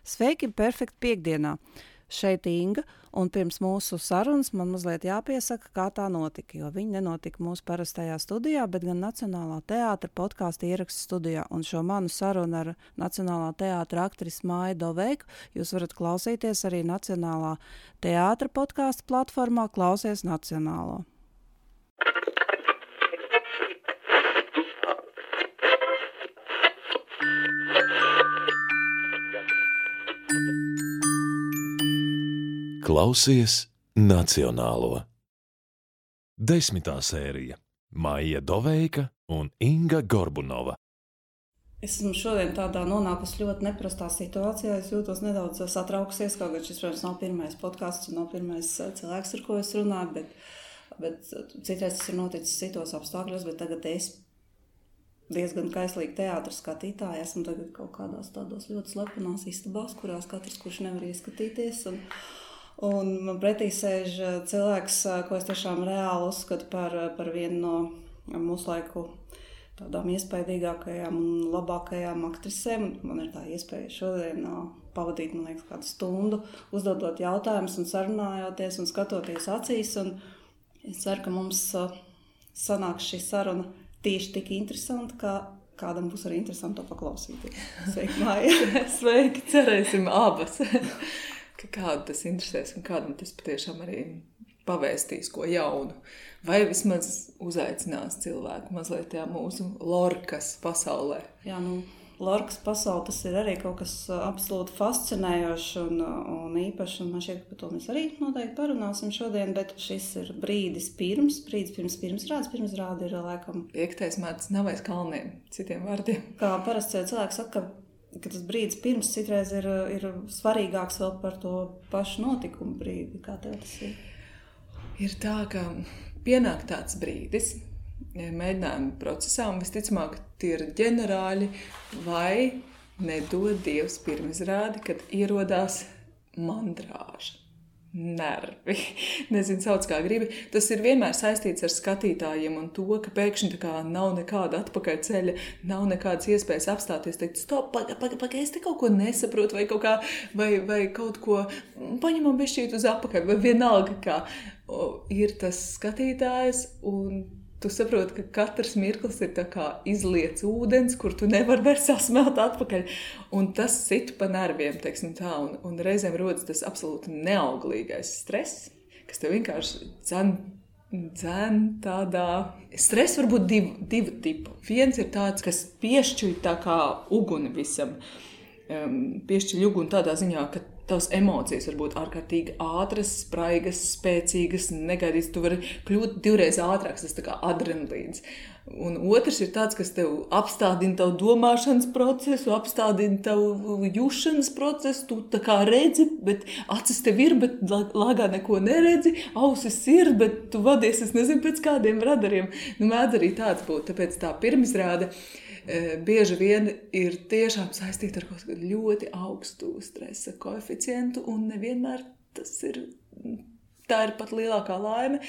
Sveiki, perfekti piekdienā. Šeit Inga, un pirms mūsu sarunas man mazliet jāpiesaka, kā tā notika, jo viņa nenotika mūsu parastajā studijā, bet gan Nacionālā teātra podkāstu ierakstu studijā. Un šo manu sarunu ar Nacionālā teātra aktrisi Māju Doveiku jūs varat klausīties arī Nacionālā teātra podkāstu platformā Klausies Nacionālo. Klausies Nacionālo. 10. sērija Maija Doveika un Inga Gorbunova. Es esmu šodien tādā nonākusi ļoti neprastā situācijā. Es jūtos nedaudz satraukusies, kaut gan šis, protams, nav pirmais podkāsts un nav pirmais cilvēks, ar ko es runāju, bet citreiz tas ir noticis citos apstākļos, bet tagad es diezgan kaislīgi teātra skatītāji. Esmu tagad kaut kādās tādos ļoti slepenās istabās, kurās katrs, kurš nevar ieskatīties. Un man pretī sēž cilvēks, ko es tiešām reāli uzskatu par vienu no mūsu laiku tādām iespaidīgākajām un labākajām aktrisēm. Man ir tā iespēja šodien pavadīt, man liekas, kādu stundu, uzdodot jautājumus un sarunājoties un skatoties acīs. Un es ceru, ka mums sanāks šī saruna tieši tik interesanti, kā kādam būs arī interesanti to paklausīties. Sveiki, Māja! Sveiki, cerēsim abas! Ka kādu tas interesēs un kādam tas patiešām arī pavēstīs ko jaunu. Vai vismaz uzaicinās cilvēku mazliet tajā mūsu Lorkas pasaulē. Jā, Lorkas pasaule tas ir arī kaut kas absolūti fascinējošs un īpašs. Un man šķiet, ka par to mēs arī noteikti parunāsim šodien, bet šis ir brīdis pirms pirmsrādes. Pirmsrāde ir laikam 5. mārts nav aiz kalniem, citiem vārdiem. Kā parasti cilvēks saka, ka tas brīdis pirms citreiz ir svarīgāks vēl par to pašu notikumu brīdi. Kā tev tas ir? Ir tā, ka pienāk tāds brīdis mēģinājumu procesā, un visticamāk tie ir ģenerāļi vai nedod Dievs pirmizrādi, kad ierodās mandrāža. Nervi. Nezinu, sauc kā gribi. Tas ir vienmēr saistīts ar skatītājiem un to, ka pēkšņi tā kā nav nekāda atpakaļceļa, nav nekādas iespējas apstāties, teikt, stop, pagaid, es te kaut ko nesaprotu vai kaut kā, vai kaut ko paņemam bišķīt uz apakaļ, vai vienalga kā. Ir tas skatītājs un tu saproti, ka katrs mirklis ir tā kā izliets ūdens, kur tu nevar vairs sasmelt atpakaļ. Un tas sit pa nerviem, teiksim tā, un reizēm rodas tas absolūti neauglīgais stress, kas tev vienkārši dzen tādā. Stress var būt divu tipu. Viens ir tāds, kas piešķuj tā kā uguni visam. Piešķiļ uguni tādā ziņā, ka tavas emocijas var būt ārkārtīgi ātras, spraigas, spēcīgas, negaidītas. Tu vari kļūt 2 reizes ātrāks, tas tā kā adrenalīns. Un otrs ir tāds, kas tev apstādina tavu domāšanas procesu, apstādina tavu jušanas procesu. Tu tā kā redzi, bet acis tev ir, bet lāgā neko neredzi. Ausis ir, bet tu vadies, es nezinu, pēc kādiem radariem. Mēdz arī tāds būt, tāpēc tā pirmizrāde bieži vien ir tiešām saistīta ar kaut kādu ļoti augstu stresa koeficientu, un nevienmēr tā ir pat lielākā laime.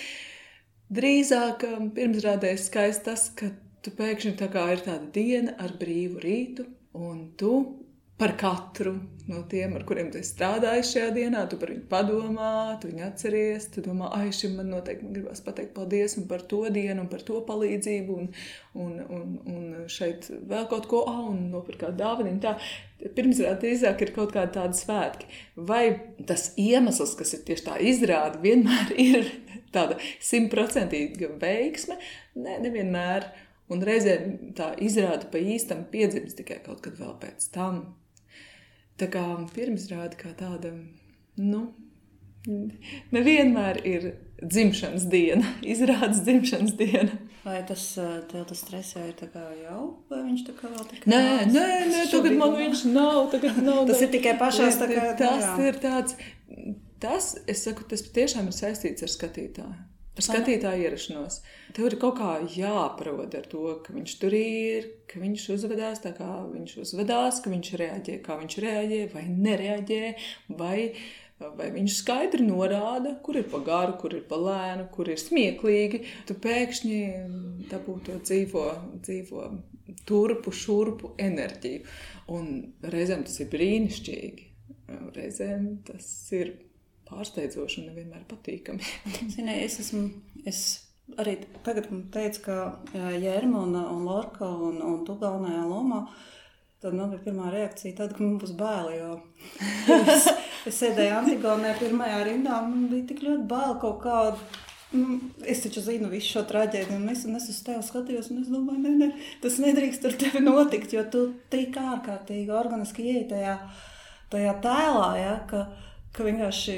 Drīzāk pirmsrādē skaisti tas, ka tu pēkšņi tā kā ir tāda diena ar brīvu rītu, un tu par katru no tiem, ar kuriem tu esi strādājis šajā dienā, tu par viņu padomā, tu viņu atceries, tu domā, šim man noteikti gribas pateikt paldies un par to dienu un par to palīdzību un šeit vēl kaut ko, un nopirkt kādu dāvaniņu. Tā pirmsrāde drīzāk ir kaut kāda tāda svētki. Vai tas iemesls, kas ir tieši tā izrāde, vienmēr ir tāda 100% veiksme? Nē, nevienmēr. Un reizēm tā izrāde pa īstam piedzimst tikai kaut kad vēl pēc tam. Tā kā pirmsrāde kā tāda, nevienmēr ir dzimšanas diena, izrādes dzimšanas diena. Vai tas stress jau ir tā kā jau, vai viņš tā kā vēl tikai Nē, tagad man viņš nav. Tas ir tikai pašās tā kā... Tas ir tāds, es saku, tas tiešām ir saistīts ar skatītāju. Ar skatītāju ierašanos. Tev ir kaut kā jāparod ar to, ka viņš tur ir, ka viņš uzvedās tā kā viņš uzvedās, ka viņš reaģē, kā viņš reaģē vai nereaģē, vai viņš skaidri norāda, kur ir pa garu, kur ir pa lēnu, kur ir smieklīgi. Tu pēkšņi dabū to dzīvo turpu, šurpu enerģiju. Un reizēm tas ir brīnišķīgi. reizēm tas ir pārsteidzoši un nevienmēr patīkami. Zini, es arī tagad teicu, ka Jērma un Lorka un tu galvenajā lomā, tad man bija pirmā reakcija tāda, ka man būs baili, jo es sēdēju Antigonē pirmajā rindā, man bija tik ļoti baili kaut kādu. Es taču zinu visu šo traģēdiju, un es uz tevi skatījos, un es domāju, ne, tas nedrīkst ar tevi notikt, jo tu tik ārkārtīgi organiski ieej tajā tēlā, ja, ka vienkārši,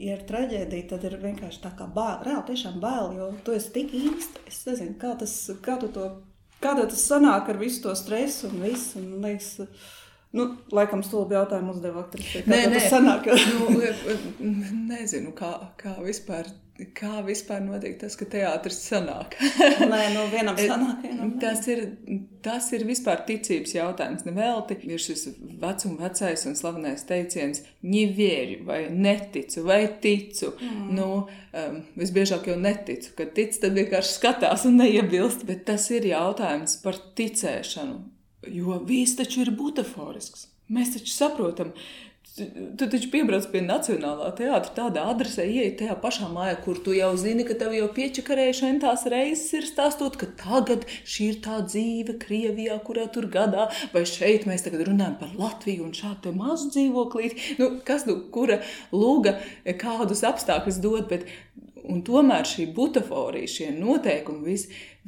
ja ir traģēdija, tad ir vienkārši tā kā bail, reāli tiešām bail, jo tu esi tik īsti, es nezinu, kā tas sanāk ar visu to stresu un visu, un liekas, laikam stulbi jautājumu uzdev aktrisē, tas sanāk? Nezinu, kā vispār notiek tas, ka teātris sanāk. Vienam sanāk, vienam Tas ir vispār ticības jautājums. Nevelti ir šis vecais un slavenais teiciens "не верю" vai "neticu" vai "ticu". Visbiežāk jau neticu, kad tic, tad vienkārši skatās un neiebilst, bet tas ir jautājums par ticēšanu, jo viss taču ir butaforisks. Mēs taču saprotam, tu taču piebrauc pie Nacionālā teātra tādā adresē, ieej tajā pašā mājā, kur tu jau zini, ka tev jau piečakarējuši entās reizes ir stāstot, ka tagad šī ir tā dzīve Krievijā, kurā tur gadā, vai šeit mēs tagad runājam par Latviju un šādu te mazu dzīvoklīti. Kura lūga kādus apstākļus dod, un tomēr šī butaforija, šie noteikumi,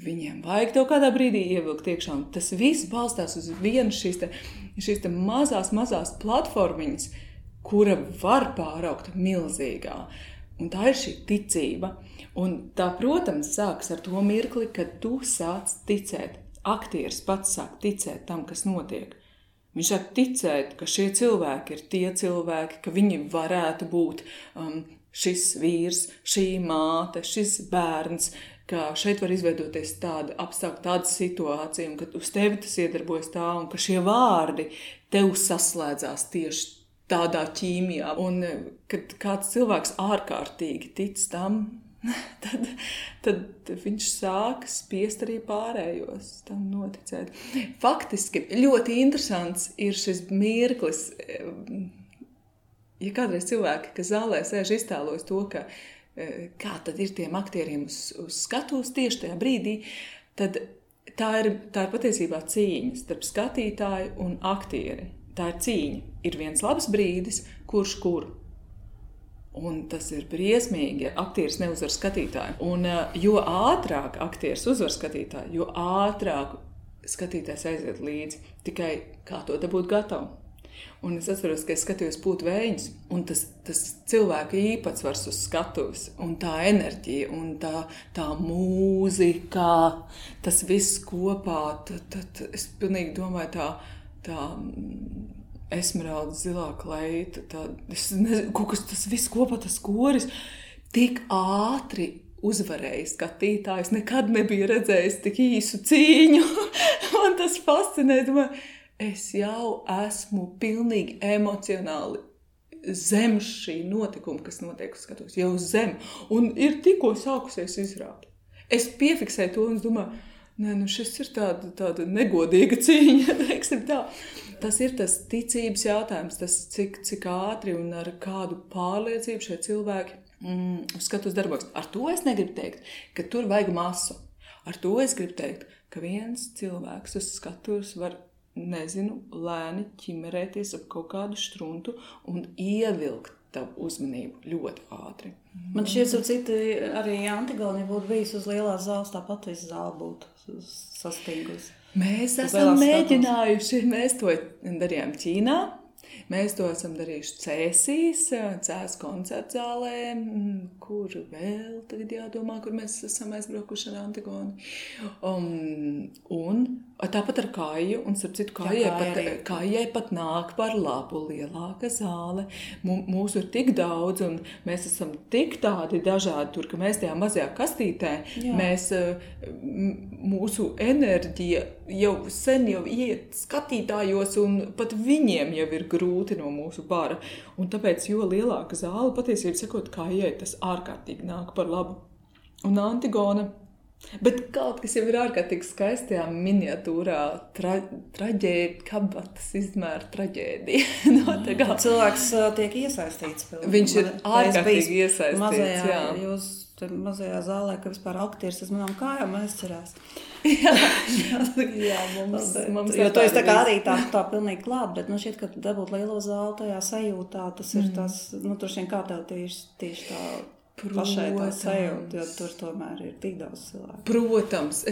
viņiem vajag tev kādā brīdī ievilkt iekšā, un tas viss balstās uz vienu šīs te mazās platformiņas, kura var pāraukt milzīgā. Un tā ir šī ticība. Un tā, protams, sāks ar to mirkli, kad tu sāc ticēt. Aktieris pats sāk ticēt tam, kas notiek. Viņš sāk ticēt, ka šie cilvēki ir tie cilvēki, ka viņi varētu būt šis vīrs, šī māte, šis bērns, ka šeit var izveidoties tāda apstākļa, tāda situācija, un ka uz tevi tas iedarbojas tā, un ka šie vārdi tev saslēdzās tieši tādā ķīmijā. Un kad kāds cilvēks ārkārtīgi tic tam, tad viņš sāk spiest arī pārējos tam noticēt. Faktiski ļoti interesants ir šis mirklis. Ja kādreiz cilvēki, kas zālē sēž, iztēlojas to, ka kā tad ir tiem aktieriem uz skatuves tieši tajā brīdī, tad tā ir patiesībā cīņa starp skatītāju un aktieri. Tā ir cīņa. Ir viens labs brīdis, kurš kur. Un tas ir briesmīgi, ja aktieris neuzvar skatītāju. Un jo ātrāk aktieris uzvar skatītāju, jo ātrāk skatītājs aiziet līdzi. Tikai kā to dabūt gatavu. Un es atceros, ka es skatījos Pūtu vējiņus, un tas cilvēka īpatsvars uz skatuves, un tā enerģija, un tā mūzika, tas viss kopā, tad es pilnīgi domāju tā esmeralda zilā kleita, es nezinu, kaut kas tas viss kopā, tas koris, tik ātri uzvarēja skatītājs, nekad nebija redzējis tik īsu cīņu, un tas fascinē, domāju, es jau esmu pilnīgi emocionāli zem šī notikuma, kas notiek uz skatuves, jau zem, un ir tikko sākusies izrāde. Es piefiksēju to un es domāju, šis ir tāda negodīga cīņa, teiksim tā. Tas ir tas ticības jautājums, tas cik ātri un ar kādu pārliecību šie cilvēki uz skatuves darbojas. Ar to es negribu teikt, ka tur vajag masu. Ar to es gribu teikt, ka viens cilvēks uz skatuves var lēni ķimerēties ap kaut kādu struntu un ievilkt tavu uzmanību ļoti ātri. Man šķiet, citi arī Antigone būtu bijis uz lielās zāles, tāpat visu zāli būtu sastīgusi. Mēs esam mēģinājuši, mēs to darījām Ķīnā, mēs to esam darījuši Cēsīs koncertu zālē, kur vēl tagad jādomā, kur mēs esam aizbraukuši ar Antigoni. Un tāpat ar Kāju, un starp citu Kājai pat nāk par labu lielāka zāle. Mūsu ir tik daudz, un mēs esam tik tādi dažādi tur, ka mēs tajā mazajā kastītē, mūsu enerģija jau sen iet skatītājos, un pat viņiem jau ir grūti no mūsu bara. Un tāpēc, jo lielāka zāle, patiesībā sakot, Kājai tas ārkārtīgi nāk par labu. Un Antigone Bet kaut kas jau ir ārkārtīgi skaistajā miniatūrā, kabatas izmēra traģēdija. Cilvēks tiek iesaistīts. Viņš ir ārkārtīgi iesaistīts, mazajā zālē, ka vispār aktieris uz manām kājām aizcerās. Jā, mums jo to es tā kā arī tā pilnīgi klāt, bet šķiet, ka dabūt lielo zāli tajā sajūtā, tas ir tas, droši vien kā tev tieši tā pašai tā sajūta, jo tur tomēr ir tik daudz cilvēku. Protams,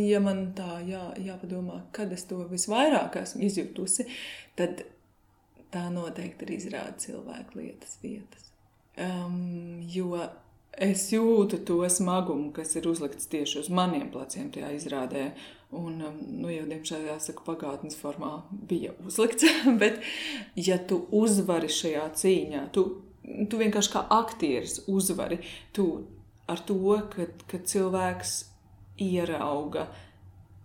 ja man tā jāpadomā, kad es to visvairāk esmu izjūtusi, tad tā noteikti ir izrāda cilvēku lietas vietas. Jo es jūtu to smagumu, kas ir uzlikts tieši uz maniem pleciem tajā izrādē. Un, jau diemžēl jāsaka, pagātnes formā bija uzlikts, bet ja tu uzvari šajā cīņā, tu vienkārši kā aktieris uzvari, tu ar to, ka cilvēks ierauga,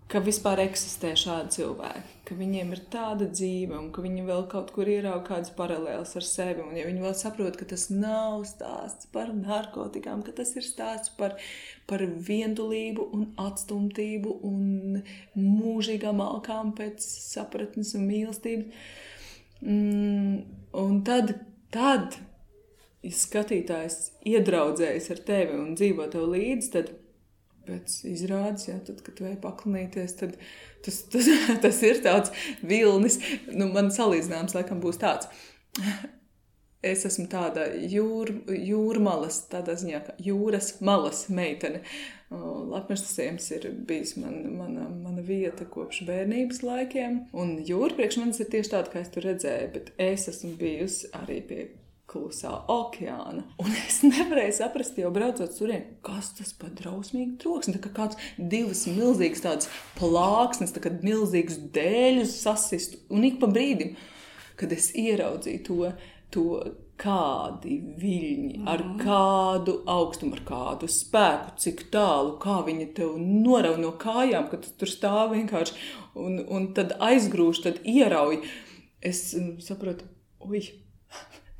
ka vispār eksistē šādi cilvēki, ka viņiem ir tāda dzīve un ka viņi vēl kaut kur ierauga kādas paralēlas ar sevi. Un ja viņi vēl saprot, ka tas nav stāsts par narkotikām, ka tas ir stāsts par vientulību un atstumtību un mūžīgām alkām pēc sapratnes un mīlestības. Un tad, ja skatītājs iedraudzējas ar tevi un dzīvo tev līdzi, tad pēc izrādes, tad, kad tu ej paklinīties, tad tas ir tāds vilnis. Man salīdzinājums laikam būs tāds. Es esmu tāda jūrmalas, tādā ziņā, kā jūras malas meitene. Latmežtasiems ir bijis mana vieta kopš bērnības laikiem. Un jūra priekš manis ir tieši tāda, kā es tur redzēju, bet es esmu bijusi arī pie klusā okeāna. Un es nevarēju saprast, jau braucot turien, kas tas pa drausmīgi troksni. Tā kā kāds divas milzīgas tādas plāksnes, tā kā milzīgas dēļus sasistu. Un ik pa brīdim, kad es ieraudzīju to kādi viļņi, ar kādu augstumu, ar kādu spēku, cik tālu, kā viņi tev norauj no kājām, kad tu tur stāv vienkārši un tad aizgrūž, tad ierauj. Es saprotu,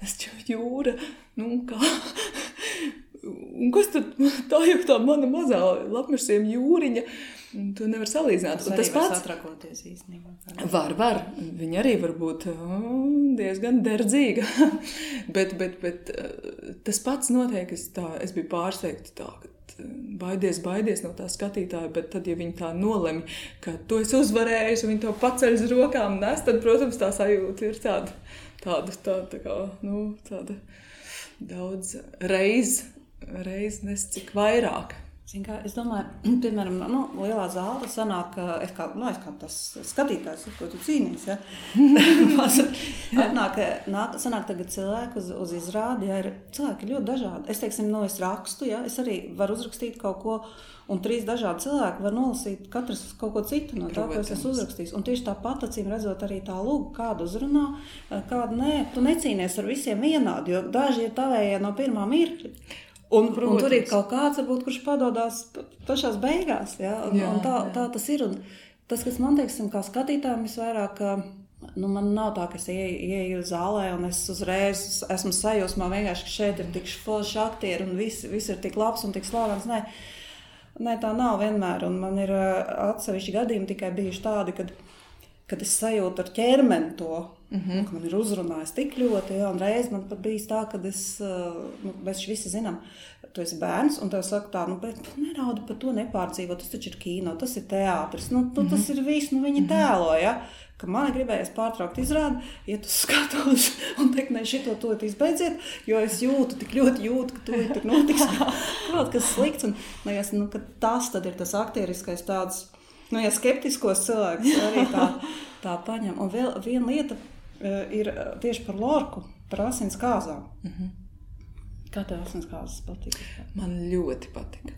es jau jūra, kā? Un kas tad tā jau tā mana mazā Latmežsiem jūriņa? To nevar salīdzināt. Tas arī var satrakoties īstenībā. Var. Viņa arī var būt diezgan derdzīga. bet tas pats notiek, es biju pārsteigta tā, ka baidies no tā skatītāja, bet tad, ja viņi tā nolemj, ka tu esi uzvarējis un viņi to paceļ uz rokām nes, tad, protams, tā sajūta ir tāda daudz reiz nes cik vairāk. Es domāju, piemēram, lielā zāle sanāk, es kā tas skatītājs, ko tu cīnīs, ja? sanāk tagad cilvēki uz izrādi, ja ir cilvēki ļoti dažādi. Es, teiksim, es rakstu, ja? Es arī varu uzrakstīt kaut ko, un 3 dažādi cilvēki var nolasīt katrs kaut ko citu no tā, ko es esmu uzrakstījis. Un tieši tāpat, acīm redzot, arī tā lūga, kādu uzrunā, kādu nē. Tu necīnies ar visiem vienādi, jo daži ir tavējie no pirmā mirkļa. Un tur ir kaut kāds, varbūt, kurš padodās pašās beigās. Ja? Un tā tas ir. Un tas, kas man, teiksim, kā skatītājiem visvairāk, man nav tā, ka es ieeju zālē un es uzreiz esmu sajūsmā vienkārši, ka šeit ir tik forši aktieri un viss ir tik labs un tik slavens. Nē, tā nav vienmēr. Un man ir atsevišķi gadījumi tikai bijuši tādi, kad es sajūtu ar ķermeni to, ka man ir uzrunājis tik ļoti, un reiz man pat bijis tā, kad mēs visi zinām, tu esi bērns, un tev saka tā, bet neraudi par to nepārdzīvot, tas taču ir kino, tas ir teātris, tas ir viss, viņi tēlo, ja? Ka man gribējies pārtraukt izrādi, iet uz skatos un teikt, šito to izbeidziet, jo es tik ļoti jūtu, ka to tik notiks kaut kas slikts, un ka tas tad ir tas aktieriskais tāds, ja skeptiskos cilvēks arī tā paņem. Un vēl viena lieta ir tieši par Lorku, par asins kāzām. Kā tev asins kāzas patika? Man ļoti patika.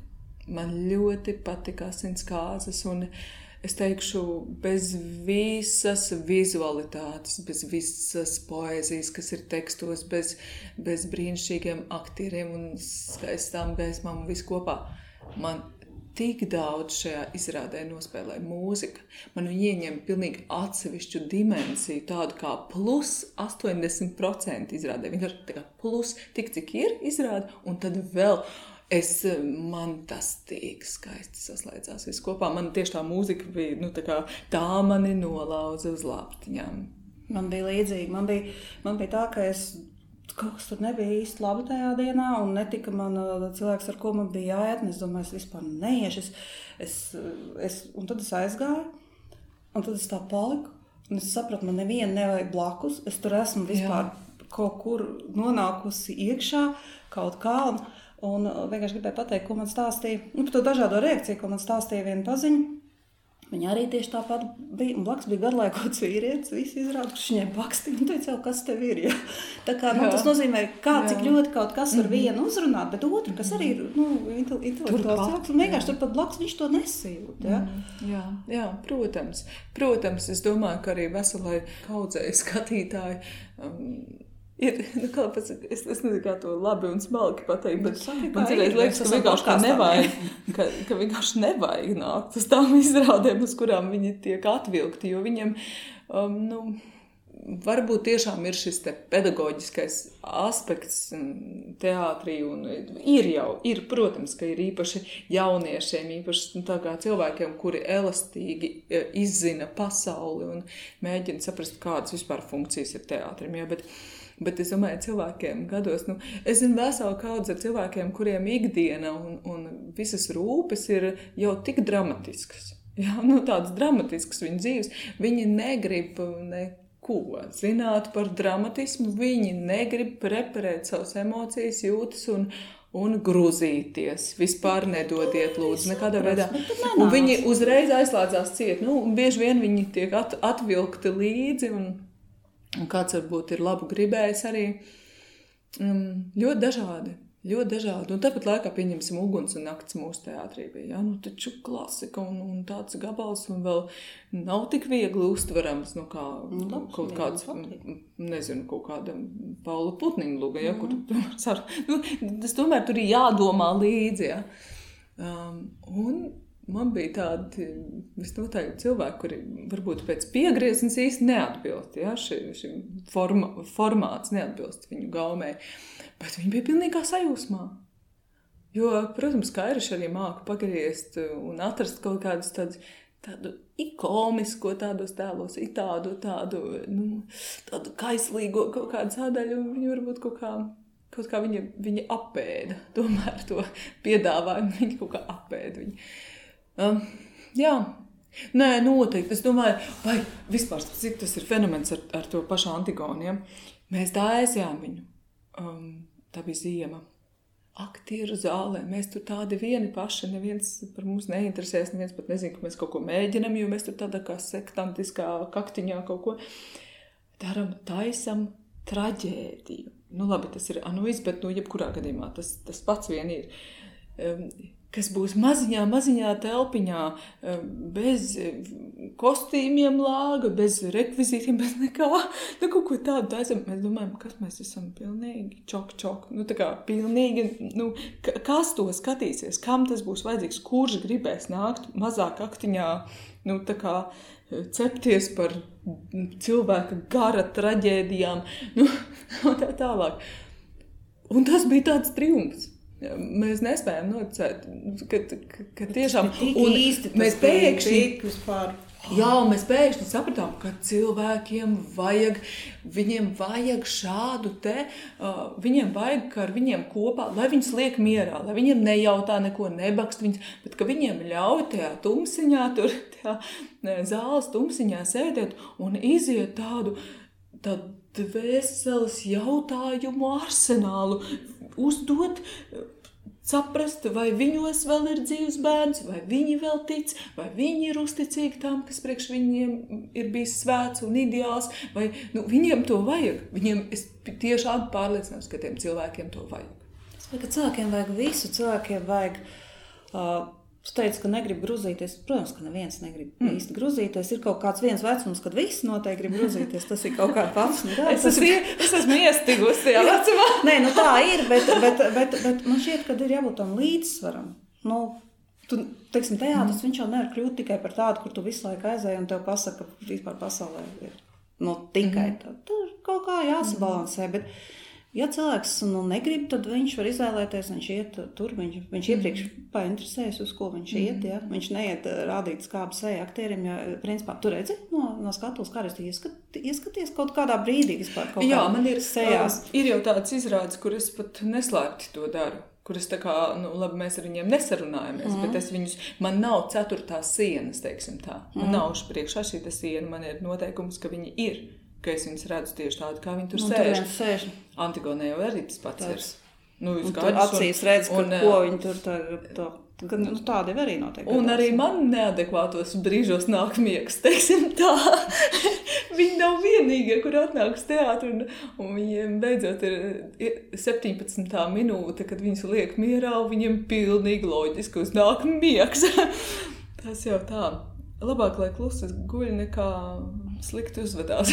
Man ļoti patika asins kāzas, un es teikšu, bez visas vizualitātes, bez visas poēzijas, kas ir tekstos, bez brīnišķīgiem aktieriem un skaistām gaismām un visu kopā. Man tik daudz šajā izrādē nospēlē mūzika. Man viņa ieņem pilnīgi atsevišķu dimensiju, tādu kā plus 80% izrādē. Vienkārši tā kā plus tik, cik ir izrāde, un tad vēl Man tas tik skaisti saslēdzās viss kopā. Man tieši tā mūzika bija, tā mani nolauza uz lāptiņām. Man bija līdzīgi. Man bija tā, ka kaut kas tur nebija īsti labi tajā dienā, un netika man cilvēks, ar ko man bija jāiet, un es domāju, es vispār neiešu. Un tad es aizgāju, un tad es tā paliku, un es sapratu, man nevienu nevajag blakus. Es tur esmu vispār kaut kur nonākusi iekšā, kaut kā, un vienkārši gribēju pateikt, ko man stāstīja. Par to dažādo reakciju, ko man stāstīja viena paziņa. Viņa arī tieši tāpat bija, un blakus bija garlaikots vīrietis, visi izrāda, kurš viņai bakstīja, un teica, kas tev ir, ja? Tā kā, tas nozīmē, cik ļoti kaut kas var vienu uzrunāt, bet otru, kas arī ir, intelektuāls cilvēks, un vienkārši tur pat blakus viņš to nesajūt, ja? Jā, protams. Protams, es domāju, ka arī veselai kaudzei skatītāji ir, es nezinu, kā to labi un smalki pateikt, bet man cilvēks liekas, ka vienkārši nevajag nākt uz tām izrādēm, uz kurām viņi tiek atvilkti, jo viņiem, varbūt tiešām ir šis te pedagoģiskais aspekts teātrī, un ir, protams, ka ir īpaši jauniešiem, īpaši tā kā cilvēkiem, kuri elastīgi izzina pasauli un mēģina saprast, kādas vispār funkcijas ir teātrim, ja, Bet es domāju, cilvēkiem gados, es zinu veselu kaudzi ar cilvēkiem, kuriem ikdiena un visas rūpes ir jau tik dramatiskas. Jā, tādas dramatiskas viņu dzīves. Viņi negrib neko zināt par dramatismu, viņi negrib preparēt savas emocijas, jūtas un grūzīties. Vispār nedodiet, lūdzu, nekādā veidā. Un viņi uzreiz aizslēdzās ciet. Bieži vien viņi tiek atvilkti līdzi un kāds varbūt ir labu gribējis arī. Ļoti dažādi. Un tāpat laikā pieņemsim Uguns un nakts mūsu teātrī bija. Ja? Taču klasika un tāds gabals un vēl nav tik viegli uztverams, kaut kāds, nezinu, kaut kāda Paula Putniņa luga, ja? Kur tas tomēr tur ir jādomā līdzi, ja? Un man bija tādi visnotaļ cilvēki, kuri varbūt pēc piegrieznes īsti neatbilst, ja? Šim formāts neatbilst viņu gaumei, bet viņi bija pilnīgā sajūsmā. Jo, protams, Kairiši arī māku pagriezt un atrast kaut kādus tādu ikomisko tādos tēlos, tādu kaislīgo kaut kādu sādaļu, un viņi varbūt kaut kā viņi apēda, tomēr to piedāvājumu, viņi kaut kā apēda viņi. Jā, nē, noteikti. Es domāju, vai vispār, cik tas ir fenomens ar to pašu Antigonu, ja? Mēs tā aizjām viņu. Tā bija ziema. Aktieru zālē. Mēs tur tādi vieni paši, neviens par mums neinteresēs, neviens pat nezin, ka mēs kaut ko mēģinam, jo mēs tur tādā kā sektantiskā kaktiņā kaut ko daram, taisam traģēdiju. Labi, tas ir anuiz, bet jebkurā gadījumā tas pats vien ir. Kas būs maziņā telpiņā, bez kostīmiem lāga, bez rekvizītiem, bez nekā. Kaut ko tādu taisam. Mēs domājam, kas mēs esam pilnīgi čok. Tā kā pilnīgi, kas to skatīsies, kam tas būs vajadzīgs, kurš gribēs nākt mazāk aktiņā, tā kā cepties par cilvēka gara traģēdijām, tā tālāk. Un tas bija tāds triumfs. Mēs nespējam noticēt, ka tiešām mēs pēkšņi sapratām, ka cilvēkiem viņiem vajag šādu viņiem vajag, ka ar viņiem kopā, lai viņus liek mierā, lai viņiem nejautā neko, nebakst viņus, bet ka viņiem ļauj tajā tumsiņā, zāles tumsiņā sēdēt un iziet tādu dvēseles jautājumu arsenālu, uzdot, saprast, vai viņos vēl ir dzīvs bērns, vai viņi vēl tic, vai viņi ir uzticīgi tam, kas priekš viņiem ir bijis svēts un ideāls, vai viņiem to vajag. Es tiešām pārliecināts, ka tiem cilvēkiem to vajag. Es domāju, ka cilvēkiem vajag visu, cilvēkiem vajag... Tu teici, ka negrib gruzīties. Protams, ka neviens negrib īsti gruzīties. Ir kaut kāds viens vecums, kad visi noteikti grib gruzīties. Tas ir kaut kā pats. Es esmu iestigusi tajā vecumā. Nē, tā ir, bet man šķiet, ka ir jābūt tam līdzsvaram. Teiksim, teātris, viņš jau nevar kļūt tikai par tādu, kur tu visu laiku aizēji un tev pasaka, ka vispār pasaulē ir tikai tā. Tur kaut kā jāsabalansē, Ja cilvēks negrib, tad viņš var izvēlēties, viņš iet tur, viņš iepriekš painteresējas, uz ko viņš iet, ja? Viņš neiet rādīt skābu seju aktierim, ja, principā, tu redzi no skatuves, kā es ieskaties kaut kādā brīdī vispār kaut Jā, kā man ir sejās. Ir jau tāds izrādes, kur es pat neslēpti to daru. Kur es tā kā, labi, mēs ar viņiem nesarunājamies, bet es viņus, man nav ceturtās sienas, teiksim tā. Man nav priekšā šī siena, man ir noteikums, ka viņi ir, ka es viņus redzu tieši tādu, kā viņi tur sēž. Antigonē jau arī tas pats ir. Tur acīs redz, ko viņi tur tādi arī noteikti. Un arī man neadekvātos brīžos nāk miegs, teiksim tā. Viņi nav vienīgie, kur atnāk uz teātru, un viņiem beidzot ir 17. minūte, kad viņus liek mierā, un viņiem pilnīgi loģiski uznāk miegs. Tas jau tā. Labāk, lai klusi guļ, nekā slikti uzvedās.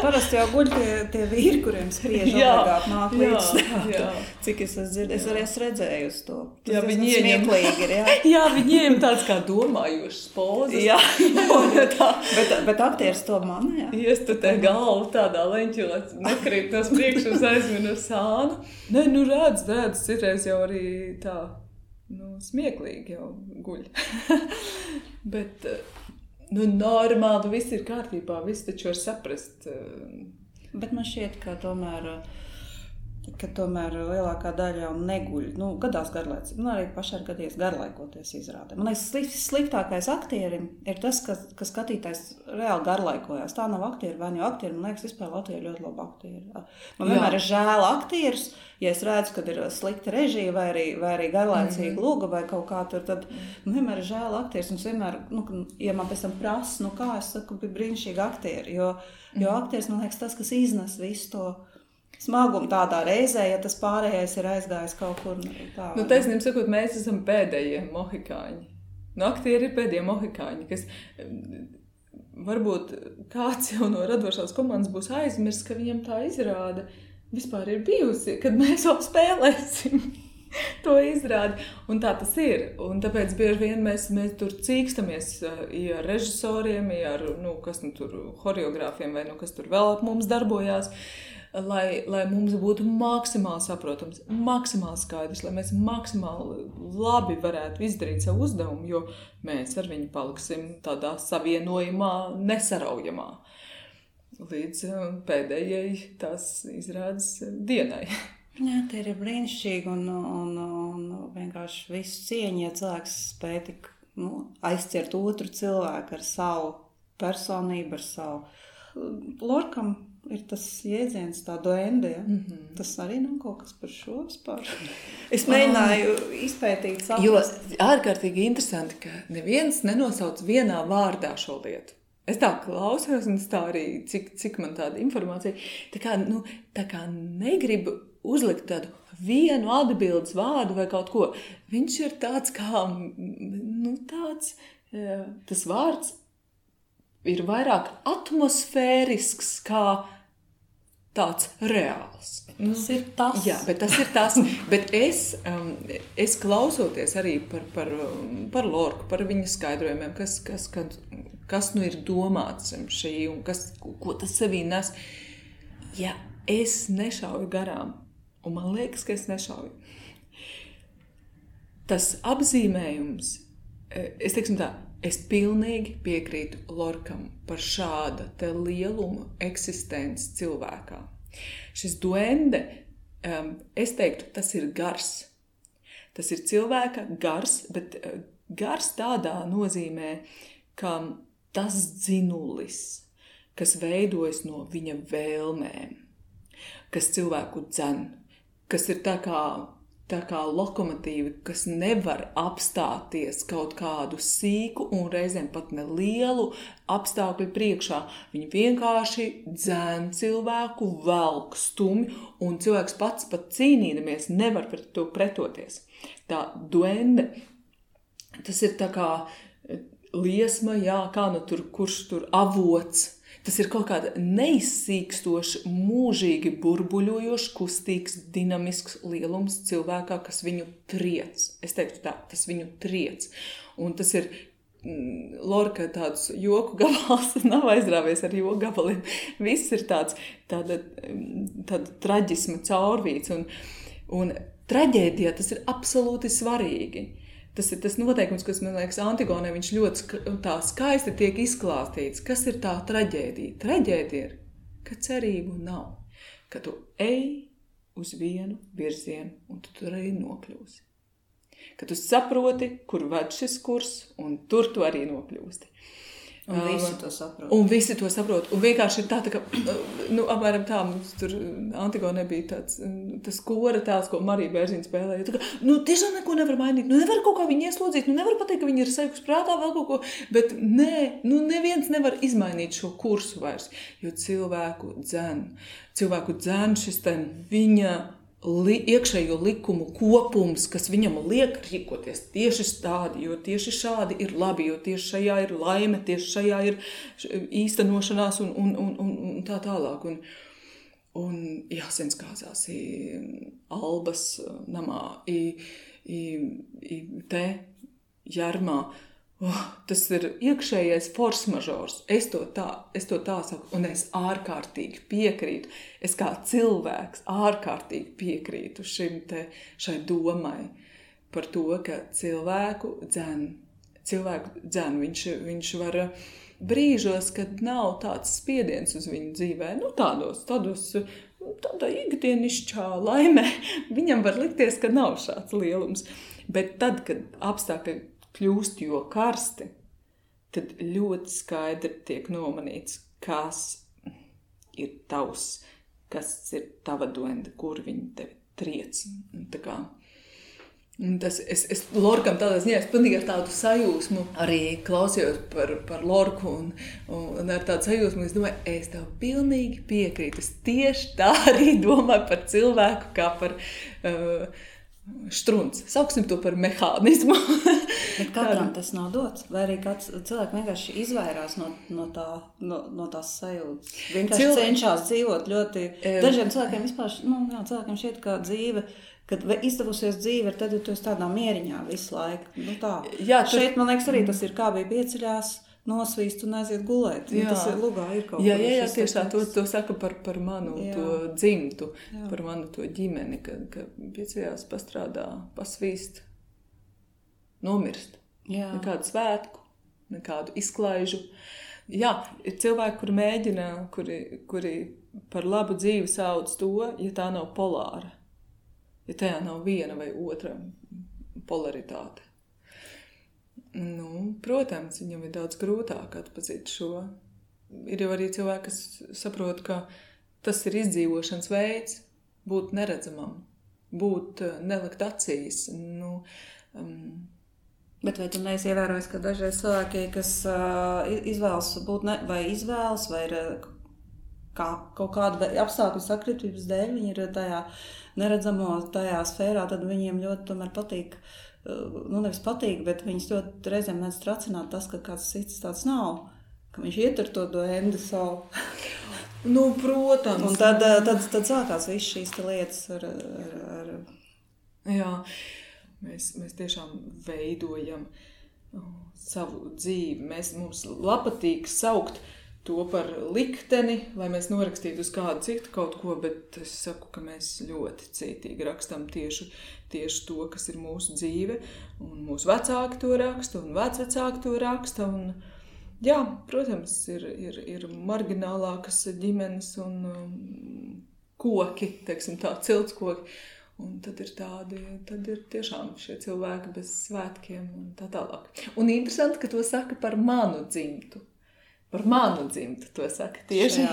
Parasti jau guļ tie vīri, kuriem spriež obligāti nāk līdz. Cik es dzirdēju, es arī esmu redzēju uz to. Tas smieklīgi ir, jā. Jā, viņiem tāds kā domājošs pozas. Jā, bet aktieris to manā, jā. Iestutē galvu tādā leņķī, lai nekrīt nos priekšu uz aizminu sānu. Nē, redz, citreiz jau arī tā. Smieklīgi jau guļ. Bet, normāli, viss ir kārtībā, viss taču var saprast. Bet man šķiet, ka tomēr lielākā daļa jau neguļ. Gadās garlaicīgi. Arī pašai ir gadījies garlaikoties izrādē. Man liekas, sliktākais aktierim ir tas, ka skatītājs reāli garlaikojās. Tā nav aktieri, vai jau aktieri. Man liekas, vispār Latvijā ir ļoti labi aktieri. Man vienmēr ir žēl aktierus, ja es redzu, kad ir slikta režija vai arī garlaicīga luga vai kaut kā tur, tad vienmēr ir žēl aktierus. Un vienmēr, ja man pēc tam prasa, kā es saku, bija brīnišķīgi aktieri. Jo aktieris, man liekas, tas, kas iznes visu to smagumu tādā reizē, ja tas pārējais ir aizgājis kaut kur tā. Taisnība sakot, mēs esam pēdējie mohikāņi. Aktieri ir pēdējie mohikāņi, kas varbūt kāds jau no radošās komandas būs aizmirst, ka viņam tā izrāda vispār ir bijusi, kad mēs vēl spēlēsim to izrādi. Un tā tas ir. Un tāpēc bieži vien mēs tur cīkstamies ar režisoriem, ar tur horeogrāfiem vai kas tur vēl ap mums darbojās. Lai mums būtu maksimāli saprotams, maksimāli skaidrs, lai mēs maksimāli labi varētu izdarīt savu uzdevumu, jo mēs ar viņu paliksim tādā savienojumā, nesaraujamā līdz pēdējai tās izrādes dienai. Jā, tie ir brīnišķīgi un vienkārši visu cieņu, ja cilvēks spēj tik aizķert otru cilvēku ar savu personību, ar savu Lorkam. Ir tas jēdziens, tā duende, ja? Tas arī nav kaut kas par šo vispār. Es mēģināju izpētīt, saprast. Jo ārkārtīgi interesanti, ka neviens nenosauc vienā vārdā šo lietu. Es tā klausos, un tā arī, cik man tāda informācija, tā kā negribu uzlikt tādu vienu atbildes vārdu vai kaut ko. Viņš ir tāds kā, tas vārds ir vairāk atmosfērisks kā tāds reāls. Tas ir tas. Jā, bet tas ir tas. Bet es klausoties arī par Lorku, par viņa skaidrojumiem, kas ir domāts šī un ko tas sevī nes. Ja es nešauju garām, un man liekas, ka es nešauju, tas apzīmējums, es teiksim tā, es pilnīgi piekrītu Lorkam par šāda te lieluma eksistenci cilvēkā. Šis duende, es teiktu, tas ir gars. Tas ir cilvēka gars, bet gars tādā nozīmē, ka tas dzinulis, kas veidojas no viņa vēlmēm, kas cilvēku dzen, kas ir tā kā lokomotīvi, kas nevar apstāties kaut kādu sīku un reizēm pat nelielu apstākļu priekšā. Viņi vienkārši dzēn cilvēku, velk stumi, un cilvēks pats pat cīnīdamies nevar pret to pretoties. Tā duende, tas ir tā kā liesma, jā, kā kurš tur avots. Tas ir kaut kāda neizsīkstoša, mūžīgi burbuļojoša, kustīgs, dinamisks lielums cilvēkā, kas viņu triec. Es teiktu tā, tas viņu triec. Un tas ir Lorka tāds joku gabals nav aizrāvies ar joku gabaliem. Viss ir tāda traģisma caurvīts. Un traģēdijā tas ir absolūti svarīgi. Tas ir tas noteikums, kas, man liekas, Antigonē viņš ļoti tā skaisti tiek izklāstīts. Kas ir tā traģēdija? Traģēdija ir, ka cerību nav. Ka tu ej uz vienu virzienu un tu tur arī nokļūsi. Ka tu saproti, kur ved šis kurs, un tur tu arī nokļūsti. Un visi to saprot. Un visi to saprot. Un vienkārši ir tā ka, apmēram tā, mums tur Antigonē bija tas kora tēls, ko Marija Bērziņa spēlēja. Tā kā, tiešām neko nevar mainīt, nevar kaut kā viņu ieslodzīt, nevar pateikt, ka viņi ir sekus prātā vēl kaut ko, bet nē, neviens nevar izmainīt šo kursu vairs, jo cilvēku dzen šis viņa iekšējo likumu kopums, kas viņam liek rīkoties tieši tādi, jo tieši šādi ir labi, jo tieši šajā ir laime, tieši šajā ir īstenošanās un tā tālāk. Un jāsens kāzās Albas namā, te Jarmā. Tas ir iekšējais force mažors. Es to tā saku, un es ārkārtīgi piekrītu. Es kā cilvēks ārkārtīgi piekrītu šai domai par to, ka cilvēku dzen. Viņš var brīžos, kad nav tāds spiediens uz viņu dzīvē, tādā ikdienišķā laimē, viņam var likties, ka nav šāds lielums. Bet tad, kad apstākļi kļūst jo karsti, tad ļoti skaidri tiek nomanīts, kas ir tavs, kas ir tava doenda, kur viņi tevi triec. Un tas, es Lorkam tādā ziņā, es pilnīgi ar tādu sajūsmu arī klausījos par Lorku un ar tādu sajūsmu, es domāju, es tev pilnīgi piekrītu. Es tieši tā arī domāju par cilvēku kā par štrunci. Sauksim to par mehānismu. Bet katram tas nav dots? Vai arī kāds cilvēks vienkārši izvairās no tās sajūtas? Vienkārši cenšas dzīvot ļoti... Dažiem cilvēkiem vispār, cilvēkiem šķiet, ka dzīve, kad izdevusies dzīve, tad tu esi tādā mieriņā visu laiku. Jā, šeit, man liekas, arī tas ir kā bija pieceļās, nosvīst un aiziet gulēt. Tas ir lugā, ir kaut jā, tiešā, to saka par manu to dzimtu, par manu to ģimeni, ka pieceļās pastrādā, pasvīst, nomirst. Nekādu svētku, nekādu izklaižu. Jā, ir cilvēki, kuri mēģina, kuri par labu dzīvi sauc to, ja tā nav polāra. Ja tajā nav viena vai otra polaritāte. Protams, viņam ir daudz grūtāk atpazīt šo. Ir jau arī cilvēki, kas saprot, ka tas ir izdzīvošanas veids, būt neredzamam, būt nelikt acīs. Bet vai tu neesi ievērojis, ka dažreiz cilvēki, kas izvēlas būt vai ir kaut kāda apstākļu sakritības dēļ, viņi ir tajā neredzamo tajā sfērā, tad viņiem ļoti tomēr patīk, nevis patīk, bet viņus ļoti reizēm mēdz tracināt tas, ka kāds cits tāds nav, ka viņš ietur to endu savu. Protams. Un tad sākās viss šīs lietas ar... Jā, mēs tiešām veidojam savu dzīvi. Mums patīk saukt to par likteni, lai mēs norakstītu uz kādu citu kaut ko, bet es saku, ka mēs ļoti cītīgi rakstam tieši to, kas ir mūsu dzīve, un mūsu vecāki to raksta, un vecvecāki to raksta, un jā, protams, ir marginālākas ģimenes un koki, teiksim tā, ciltskoki, un tad ir tiešām šie cilvēki bez svētkiem un tā tālāk. Un interesanti, ka to saka par manu dzimtu. Par manu dzimtu to saka tieši.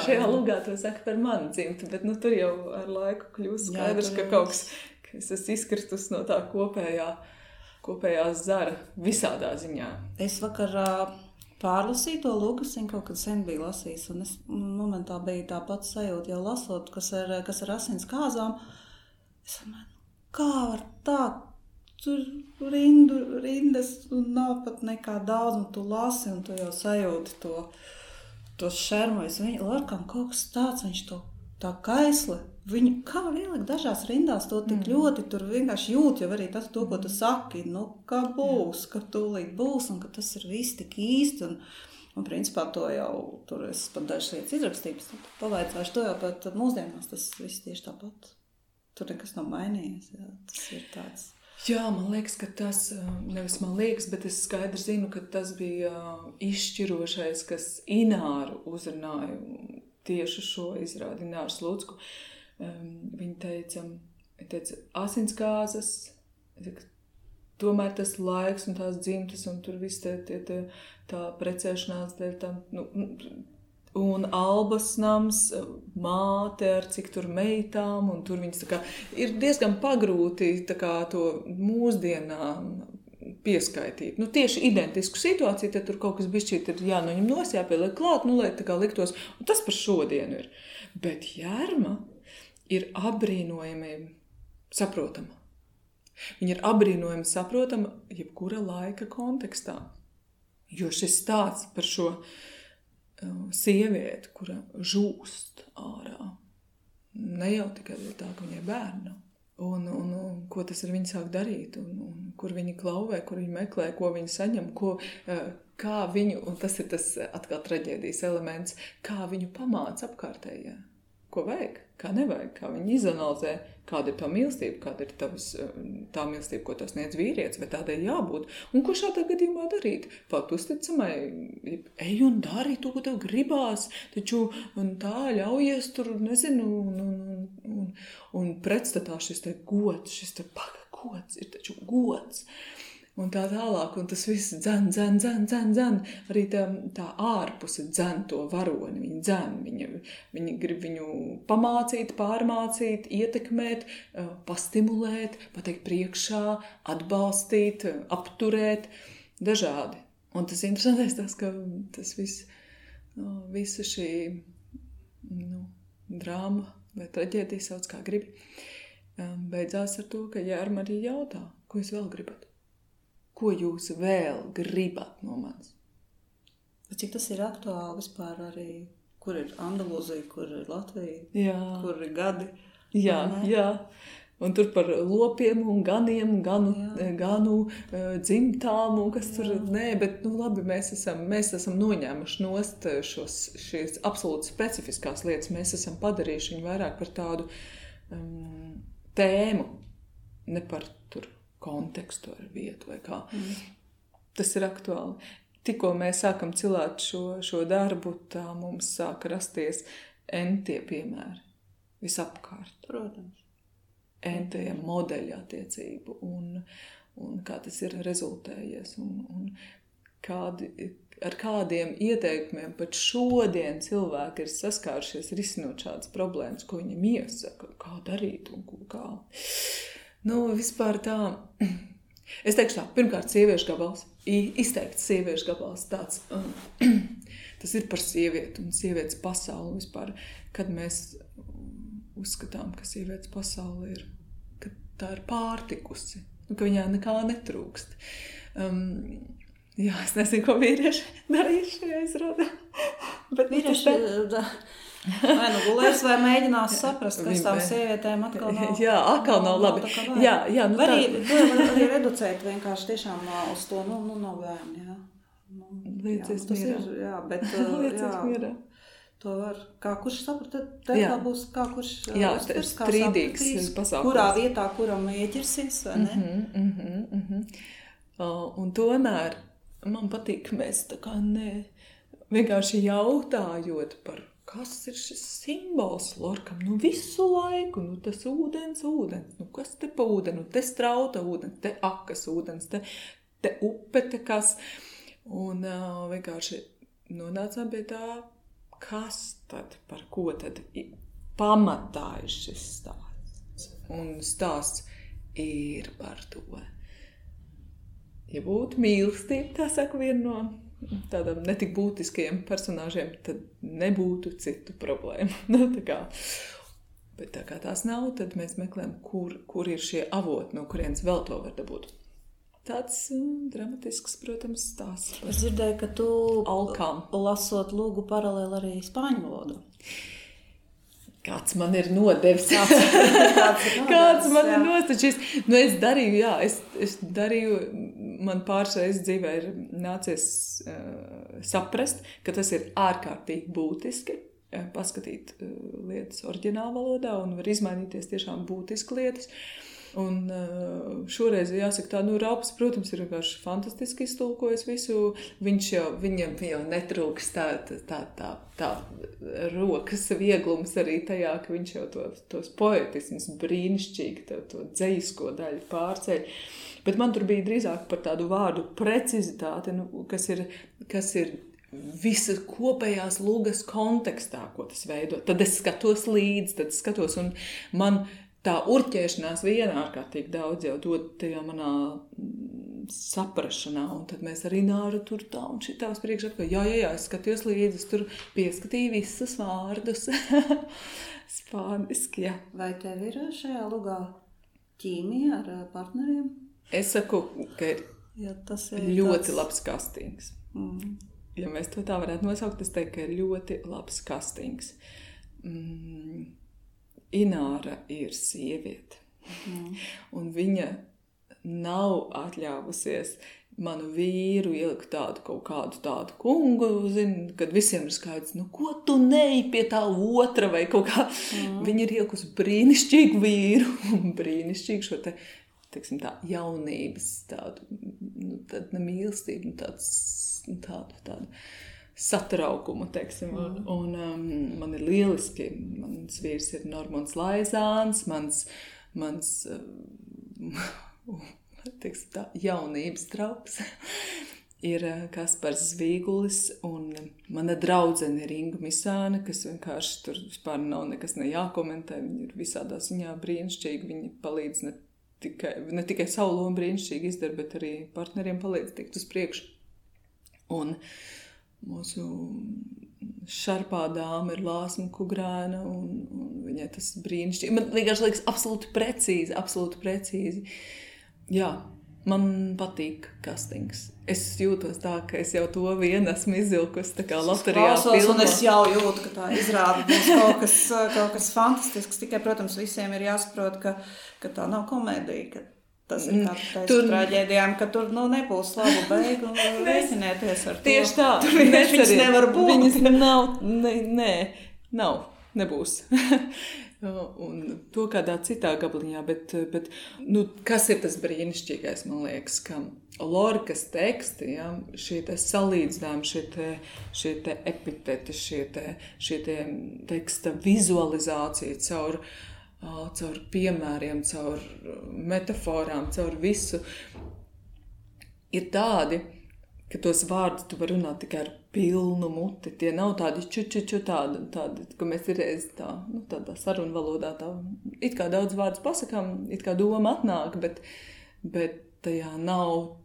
Šajā lugā to saka par manu dzimtu, bet tur jau ar laiku kļūst skaidrs, ka kaut kas, ka es esmu izkristus no tā kopējās zara visādā ziņā. Es vakar pārlasīju to Lukasiņu, kaut kad sen biju lasījis, un es momentā bija tā pats sajūta, jau lasot, kas ar asins kāzām. Es domāju, kā var tā? Tur rindas un nav pat nekā daudz, un tu lasi, un tu jau sajūti to šermu. Lorkam kaut kas tāds, viņš to tā kaisle, viņu kā ielikt dažās rindās, to tik ļoti tur vienkārši jūt, jau arī tas, to, ko tu saki, nu, kā būs, ka tūlīt būs, un ka tas ir viss tik īsti, un principā to jau, tur es pat dažas lietas izrakstības, pavaicāšu to jau, bet mūsdienās tas viss tieši tāpat. Tur nekas nav mainījies, jā, tas ir tāds. Jā, man liekas, ka tas, nevis man liekas, bet es skaidri zinu, ka tas bija izšķirošais, kas Ināru uzrunāja tieši šo izrādi, Ināru Slucku. Viņa teica, asinsgāzes, tomēr tas laiks un tās dzimtas un tur viss tā precēšanās dēļ tam, un Albas nams, māte ar cik tur meitām, un tur viņas tā kā ir diezgan pagrūti tā kā to mūsdienām pieskaitīt. Tieši identisku situāciju, tad tur kaut kas bišķīt ir jānoņem nos, jāpieliek klāt, lai tā kā liktos, un tas par šodienu ir. Bet Jerma ir apbrīnojami saprotama. Viņa ir apbrīnojami saprotama jebkura laika kontekstā. Jo šis stāsts par šo sievieti, kura žūst ārā, ne jau tikai tā, ka viņai bērna. Un ko tas ar viņu sāk darīt, un kur viņi klauvē, kur viņi meklē, ko viņi saņem, kā viņu, un tas ir tas atkal traģēdijas elements, kā viņu pamāca apkārtējā. Ko vajag, kā nevajag, kā viņi izanalizē, kāda ir tā mīlestība, kāda ir tā mīlestība, ko tas sniedz vīrietis, vai tādai jābūt. Un ko šādā gadījumā darīt? Palikt uzticamai, ej un dari to, ko tev gribās, taču tā ļaujies tur, nezinu, un pretstatā šis te gods, šis te gods, ir taču gods. Un tā tālāk, un tas viss dzen. Arī tā ārpuse dzen to varoni, viņi dzen, viņi grib viņu pamācīt, pārmācīt, ietekmēt, pastimulēt, pateikt priekšā, atbalstīt, apturēt, dažādi. Un tas interesantais tas, ka tas viss, visa šī drāma vai traģēdija sauc kā gribi, beidzās ar to, ka Jerma arī jautā, ko jūs vēl gribat? Ko jūs vēl gribat no manis? Cik tas ir aktuāli vispār arī, kur ir Andalūzija, kur ir Latvija, kur ir gadi? Jā. Un tur par lopiem un ganiem, ganu dzimtām un kas tur, bet labi, mēs esam noņēmuši nost šīs absolūti specifiskās lietas, mēs esam padarījuši viņu vairāk par tādu tēmu, ne par tur kontekstu ar vietu vai kā. Tas ir aktuāli. Tikko mēs sākam cilāt šo darbu, tā mums sāka rasties entie piemēri visapkārt. Protams. Entie modeļi attiecību un kā tas ir rezultējies un ar kādiem ieteikumiem pat šodien cilvēki ir saskārušies risinot šādas problēmas, ko viņam iesaka, kā darīt un kā. Vispār tā, es teikšu tā, pirmkārt sieviešu gabals, izteikts sieviešu gabals tāds, tas ir par sievieti un sievietes pasauli vispār, kad mēs uzskatām, ka sievietes pasauli ir, ka tā ir pārtikusi, ka viņā nekā netrūkst. Es nezinu, ko vīrieši darījuši šajā izrādē. Bet vīrieši vai gulēs vai mēģinās saprast, kas tām sievietēm atkal nav. Jā, atkal nav labi. Var arī reducēt vienkārši tiešām uz to, nav bērni, jā. Liecies mierā. Jā, bet mierā. To var, kā kurš saprata, tā būs, kā kurš uztvers, kā strīdīgs pasākums. Kurā vietā, kuram ieķersies, vai ne? Un tomēr man patīk, ka mēs tā kā vienkārši jautājot par kas ir šis simbols Lorkam? Visu laiku, tas ūdens, kas te pa ūdeni, te strauta ūdens, te akas ūdens, te upe, te kas. Un vienkārši nonācām pie tā, kas tad, par ko tad pamatā ir šis stāsts. Un stāsts ir par to. Ja būtu mīlestība, tā saka viena no tādām netik būtiskajiem personāžiem, tad nebūtu citu problēmu. Bet tā kā tās nav, tad mēs meklējam, kur ir šie avoti, no kurienes vēl to var dabūt. Tāds dramatisks, protams, stāsts. Es dzirdēju, ka tu alkām lasot lūgu paralēli arī spāņu valodu. Kāds man ir nodevis, kāds man ir nostačis. Nu, es darīju, man pāršreiz dzīvē ir nācies saprast, ka tas ir ārkārtīgi būtiski, paskatīt lietas oriģināla valodā un var izmainīties tiešām būtiski lietas. Un šoreiz, jāsaka tā, Raups, protams, ir vienkārši fantastiski iztulkojis visu. Viņam jau netrūks tā rokas vieglums arī tajā, ka viņš jau tos poetismus brīnišķīgi, to dzejisko daļu pārceļ. Bet man tur bija drīzāk par tādu vārdu precizitāti, kas ir visa kopējās lugas kontekstā, ko tas veido. Tad es skatos līdzi, un man tā urķēšanās viena ārkārtīgi daudz jau dod tajā manā saprašanā, un tad mēs arī Nāra tur tā un šitā uz priekšu apkārt. Jā, es skatījos līdzi, es tur pieskatīju visus vārdus. Spāniski, jā. Vai tev ir šajā lugā ķīmija ar partneriem? Es saku, ka ir ļoti labs kastings. Ja mēs to tā varētu nosaukt, es teiktu, ka ir ļoti labs kastings. Ināra ir sieviete, un viņa nav atļāvusies manu vīru ielikt kaut kādu tādu kungu, kad visiem ir skaidrs, ko tu neej pie tā otra vai kaut kā. Viņa ir ielikusi brīnišķīgu vīru, un brīnišķīgu šo teiksim tā, jaunības tādu, tādu mīlestību, tādu satraukumu, teiksim, un man ir lieliski, mans vīrs ir Normons Laizāns, mans teiksim tā, jaunības draugs ir Kaspars Zvīgulis, un mana draudzene ir Inga Misāne, kas vienkārši tur vispār nav nekas nejākomentē, viņa ir visādā ziņā brīnišķīgi, viņa palīdz ne tikai savu lomu brīnišķīgi izdara, bet arī partneriem palīdz tikt uz priekšu. Un mūsu šarpā dāma ir Lāsma Kugrēna, un viņai tas brīnišķīgi. Man liekas absolūti precīzi. Jā, man patīk kastings. Es jūtos tā, ka es jau to vienu esmu izvilkusi tā kā loterijā filmā. Un es jau jūtu, ka tā izrāda būs kaut kas fantastisks. Tikai, protams, visiem ir jāsaprot, ka tā nav komēdija, ka tas ir kā traģēdijām, ka tur nebūs labu beigu, rēķinieties ar to. Tieši tā. Viņas nevar būt. Viņas nebūs. Un to kādā citā gabaliņā, bet kas ir tas brīnišķīgais, man liekas, ka Lorkas teksti, ja, šie te salīdzinājumi, šie te epiteti, šie te teksta vizualizācija caur piemēriem, caur metaforām, caur visu, ir tādi, ka tos vārdus tu var runāt tikai ar pilnu muti. Tie nav tādi tādi, ka mēs ir tādā sarunu valodā it kā daudz vārdus pasakām, it kā doma atnāk, bet tajā nav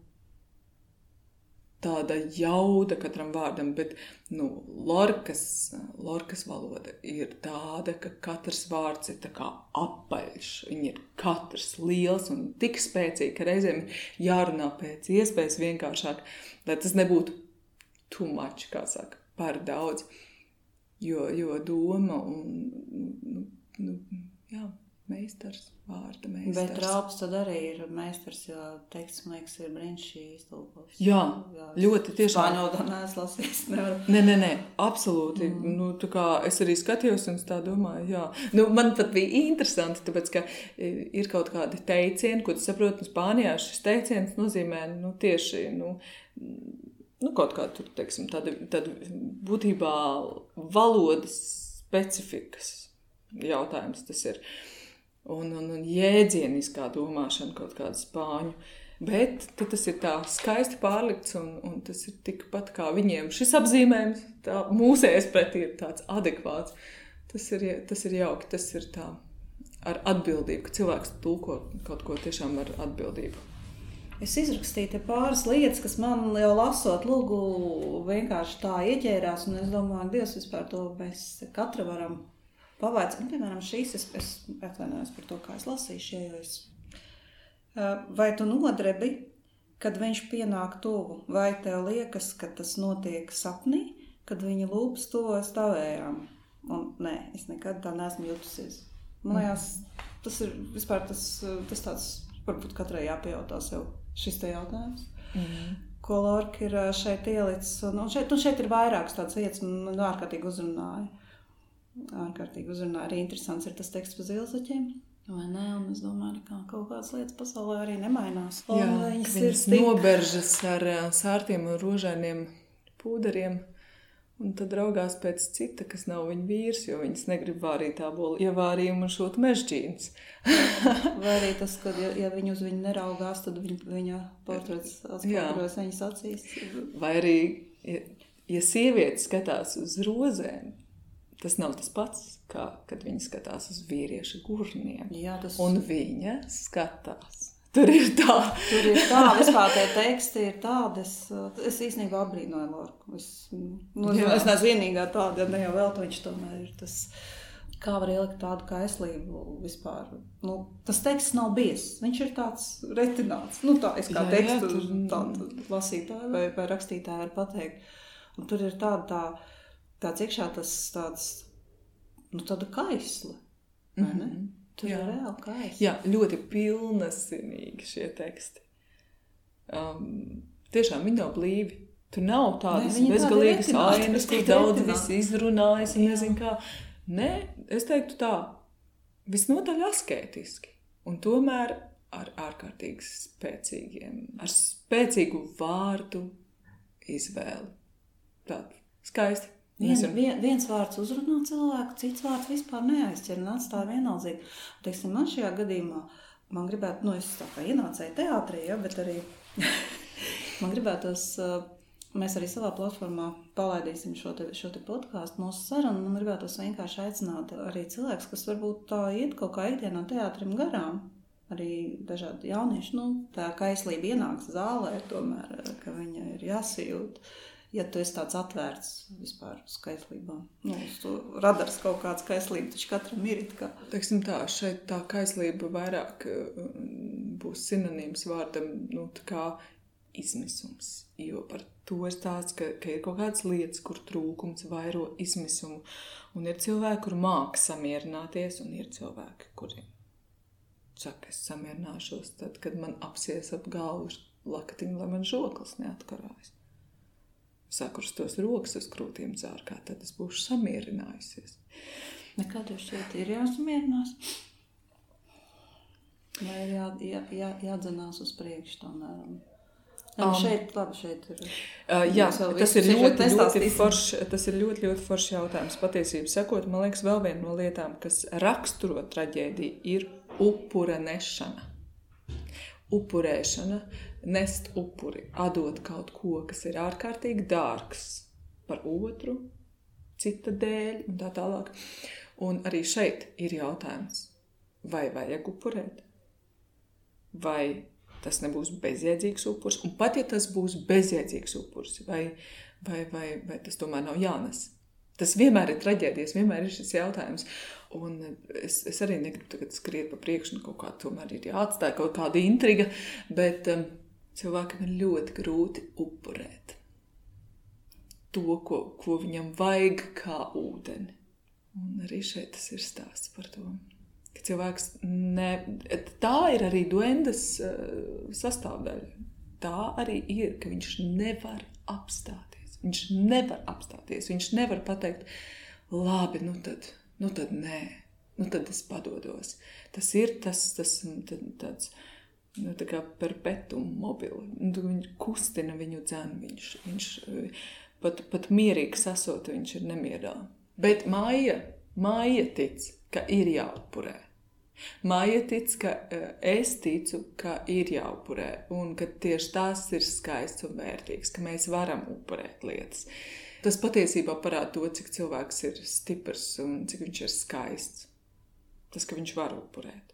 tāda jauda katram vārdam, bet Lorkas valoda ir tāda, ka katrs vārds ir tā kā apaļš. Viņi ir katrs liels un tik spēcīgi, ka reizēm jārunā pēc iespējas vienkāršāk, lai tas nebūtu too much, kā saka, par daudz. Jo doma un, meistars, vārda meistars. Bet Raups tad arī ir meistars, jo teksts, man liekas, ir brīnišķīgi iztulkots. Jā, ļoti tiešām. Spāņodā neesmu lasījis, nevaru. Nē, absolūti. Tā kā es arī skatījos un tā domāju, jā. Man pat bija interesanti, tāpēc, ka ir kaut kādi teicieni, ko tu saproti, Spānijā šis teiciens nozīmē, tieši, kaut kā tur, teiksim, tāda būtībā valodas specifikas jautājums tas ir. Un jēdzieniskā domāšana kaut kāda spāņu. Bet tas ir tā skaisti pārlikts un tas ir tikpat kā viņiem. Šis apzīmējums mūsējais pretī ir tāds adekvāts. Tas ir jauki, tas ir tā ar atbildību, ka cilvēks tulko kaut ko tiešām ar atbildību. Es izrakstīju te pāris lietas, kas man jau lasot lugu vienkārši tā ieķērās, un es domāju, Dievs, vispār to mēs katra varam pavaicāt. Piemēram, šīs es atvainojos par to, kā es lasīšu, vai tu nodrebi, kad viņš pienāk tuvu, vai tev liekas, ka tas notiek sapnī, kad viņa lūpas tuvojas tavējām? Un nē, es nekad tā neesmu jutusies. Man liekas, tas ir vispār tas tāds, varbūt katrai jāpajautā sev šis te jautājums. Ko Lorka ir šeit ielicis. Un šeit ir vairākas tādas vietas, man ārkārtīgi uzrunāja. Arī interesants ir tas teksts par zilzaķiem. Vai ne? Un es domāju, ka kaut kādas lietas pasaulē arī nemainās. Jā, viņas noberžas ar sārtiem un rožainiem pūderiem. Un tad raugās pēc cita, kas nav viņa vīrs, jo viņas negrib vārīt ābolu ievārījumu un šūt mežģīnas. Vai arī tas, ka ja viņi uz viņu neraugās, tad viņa portrets atspoguļojas viņas acīs. Vai arī, ja sieviete skatās uz rozēm, tas nav tas pats, kā kad viņa skatās uz vīrieša gurniem. Jā, un viņa skatās. Tur ir tā. Vispār tie teksti ir tādi. Es īstenībā apbrīnoju Lorku. Es neesmu vienīgā tāda, ja ne jau vēl to viņš tomēr ir tas, kā var ielikt tādu kaislību vispār. Tas teksts nav biezs. Viņš ir tāds retināts. Tā es kā tekstu tādu lasītāju vai rakstītāju var pateikt. Un tur ir tāds iekšā tāds, tāda kaisla. Vai ne? Tur ir reāli kaisli. Jā, ļoti pilnasinīgi šie teksti. Tiešām viņi nav blīvi. Tur nav tādas bezgalīgas ainas, kur daudz visi izrunājas un nezinu kā. Nē, es teiktu tā, visnotaļ askētiski. Un tomēr ar ārkārtīgi ar spēcīgu vārdu izvēli. Tāda skaisti. Viens vārds uzrunā cilvēku, cits vārds vispār neaizķer un atstāja vienaldzīgi. Teiksim, man šajā gadījumā, man gribētu, es tā kā ienācēju teātrī, bet arī man gribētos, mēs arī savā platformā palaidīsim šo te podcastu, mūsu sarunu, man gribētos vienkārši aicināt arī cilvēks, kas varbūt tā iet kaut kā ikdienā teātrim garām, arī dažādi jaunieši, tā kaislība ienāks zālē, tomēr, ka viņa ir jāsajūt. Ja tu esi tāds atvērts vispār uz kaislībām. Uz to radars kaut kāds kaislība, taču katram ir it kā. Teiksim tā, šeit tā kaislība vairāk būs sinonīms vārdam, tā kā izmisums. Jo par to ir tāds, ka ir kaut kādas lietas, kur trūkums vairo izmisumu. Un ir cilvēki, kur māka samierināties, un ir cilvēki, kuri saka, es samierināšos tad, kad man apsies ap galvu lakatiņu, lai man žoklis neatkarājas. Sakurstos rokas uz krūtīm dzārkā, tad es būšu samierinājusies. Nekā tev šeit ir jāsamierinās? Vai ir jādzenās uz priekšu tomēr? Šeit ir. Jā, tas ir ļoti foršs jautājums. Patiesību sakot, man liekas, vēl viena no lietām, kas raksturo traģēdiju, ir upura nešana. Upurēšana, nest upuri, atdot kaut ko, kas ir ārkārtīgi dārgs par otru, cita dēļ un tā tālāk. Un arī šeit ir jautājums, vai vajag upurēt? Vai tas nebūs bezjēdzīgs upurs? Un pat ja tas būs bezjēdzīgs upurs, vai tas tomēr nav jānes? Tas vienmēr ir traģēdijas, vienmēr ir šis jautājums. Un es arī negribu tagad skriet pa priekšu, kaut kā tomēr ir jāatstāj kaut kāda intriga, bet cilvēkam ir ļoti grūti upurēt to, ko viņam vajag kā ūdeni. Un arī šeit tas ir stāsts par to, ka cilvēks tā ir arī duendas sastāvdaļa. Tā arī ir, ka viņš nevar apstāties. Viņš nevar apstāties, viņš nevar pateikt, labi, tad nē, tad es padodos. Tas ir tāds, tā kā perpetuum mobile. Viņš kustina viņu dzenu, viņš pat mierīgi sasot, viņš ir nemierā. Bet Maija tic, ka ir jāupurē. Maija tic, ka es ticu, ka ir jāupurē un ka tieši tās ir skaists un vērtīgs, ka mēs varam upurēt lietas. Tas patiesībā parāda to, cik cilvēks ir stiprs un cik viņš ir skaists. Tas, ka viņš var upurēt.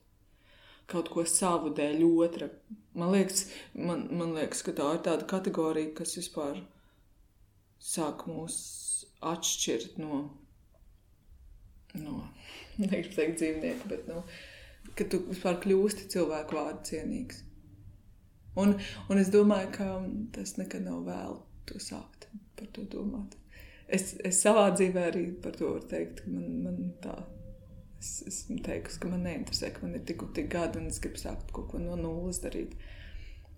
Kaut ko savu dēļ otra. Man liekas, ka tā ir tāda kategorija, kas vispār sāk mūs atšķirt no negribu teikt dzīvnieku, bet ka tu vispār kļūsti cilvēku vārdu cienīgs. Un es domāju, ka tas nekad nav vēl to sākt par to domāt. Es savā dzīvē arī par to varu teikt, ka man tā, esmu teikusi, ka man neinteresē, ka man ir tik gadi un es gribu sākt kaut ko no nulles darīt.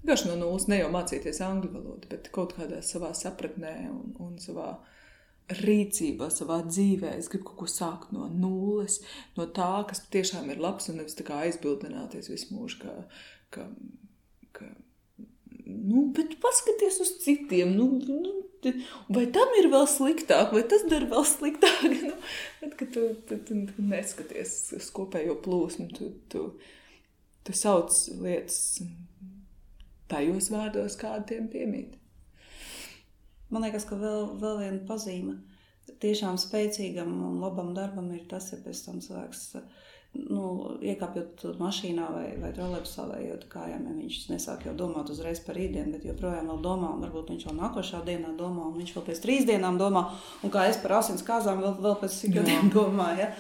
Vienkārši no nulles, ne jau mācīties angļu valodu, bet kaut kādā savā sapratnē un savā rīcībā, savā dzīvē. Es gribu kaut ko sākt no nulles, no tā, kas tiešām ir labs un nevis tā kā aizbildināties visu mūžu, ka bet paskaties uz citiem, vai tam ir vēl sliktāk, vai tas dara vēl sliktāk, bet, ka tu neskaties uz kopējo plūsmu, tu sauc lietas tajos vārdos, kādi tiem piemīt. Man liekas, ka vēl viena pazīme tiešām spēcīgam un labam darbam ir tas, ja pēc tam cilvēks, iekāpjot mašīnā vai trolejbusā vai ejot kājām, ja viņš nesāk jau domāt uzreiz par rītdienu, bet joprojām vēl domā, un varbūt viņš vēl nākošā dienā domā, un viņš vēl pēc 3 dienām domā, un kā es par asins kāzām vēl pēc 6 gadiem domāju,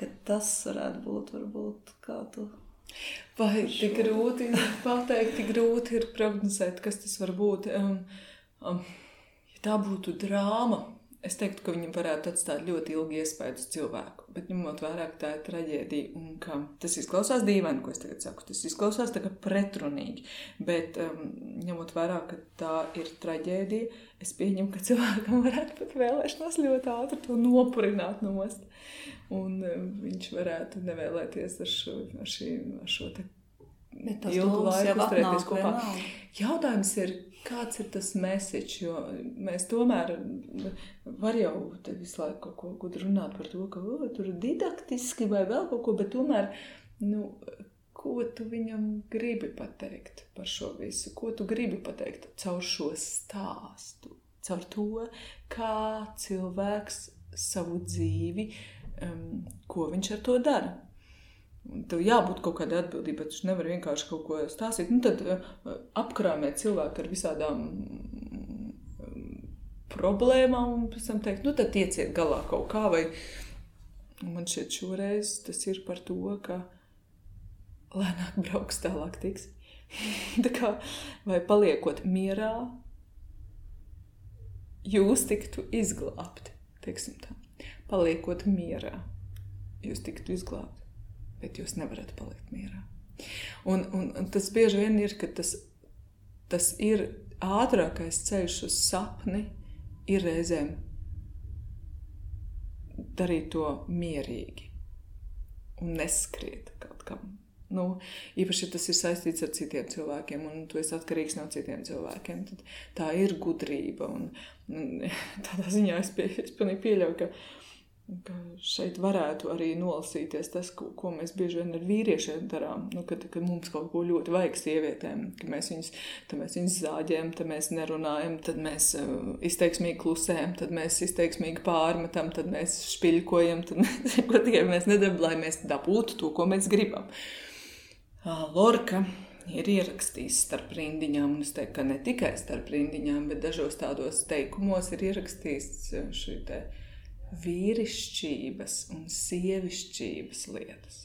ka tas varētu būt varbūt kā tu... Vai tik grūti pateikt, tik grūti ir prognozēt, kas tas var būt. Ja tā būtu drāma, es teiktu, ka viņam varētu atstāt ļoti ilgi iespēju uz cilvēku, bet ņemot vērā, ka tā ir traģēdija un ka tas izklausās dīvaini, ko es tagad saku, tas izklausās tā kā pretrunīgi, bet ņemot vērā, ka tā ir traģēdija, es pieņemu, ka cilvēkam varētu pat vēlēšanās ļoti ātri to nopurināt nost. Un viņš varētu nevēlēties ar šo te ilgu laiku uzturēties kopā. Jautājums ir, kāds ir tas message, jo mēs tomēr var jau te visu laiku kaut ko gudri runāt par to, ka tur didaktiski vai vēl kaut ko, bet tomēr, ko tu viņam gribi pateikt par šo visu? Ko tu gribi pateikt caur šo stāstu? Caur to, kā cilvēks savu dzīvi ko viņš ar to dara. Tev jābūt kaut kādai atbildībai, bet tu nevar vienkārši kaut ko stāstīt. Tad apkrāmē cilvēku ar visādām problēmām un pēc tam teikt, tad tieciet galā kaut kā. Vai man šķiet šoreiz tas ir par to, ka lēnāk brauks, tālāk tiks. Tā kā, vai paliekot mierā, jūs tiktu izglābti, teiksim tā. Paliekot mierā, jūs tiktu izglābti, bet jūs nevarat palikt mierā. Un tas bieži vien ir, ka tas ir ātrākais ceļš uz sapni, ir reizēm darīt to mierīgi un neskriet kaut kam. Īpaši, ja tas ir saistīts ar citiem cilvēkiem un tu esi atkarīgs no citiem cilvēkiem, tad tā ir gudrība. Un tādā ziņā es pilnīgi pieļauju, ka šeit varētu arī nolasīties tas, ko mēs bieži vien ar vīriešiem darām, kad mums kaut ko ļoti vajag sievietēm, ka mēs viņus zāģējam, tad mēs nerunājam, tad mēs izteiksmīgi klusējam, tad mēs izteiksmīgi pārmetam, tad mēs špiļkojam, tad mēs nedaram, lai mēs dabūtu to, ko mēs gribam. Lorka ir ierakstījis starp rindiņām, un es teiktu, ka ne tikai starp rindiņām, bet dažos tādos teikumos ir ierakstījis šī te vīrišķības un sievišķības lietas.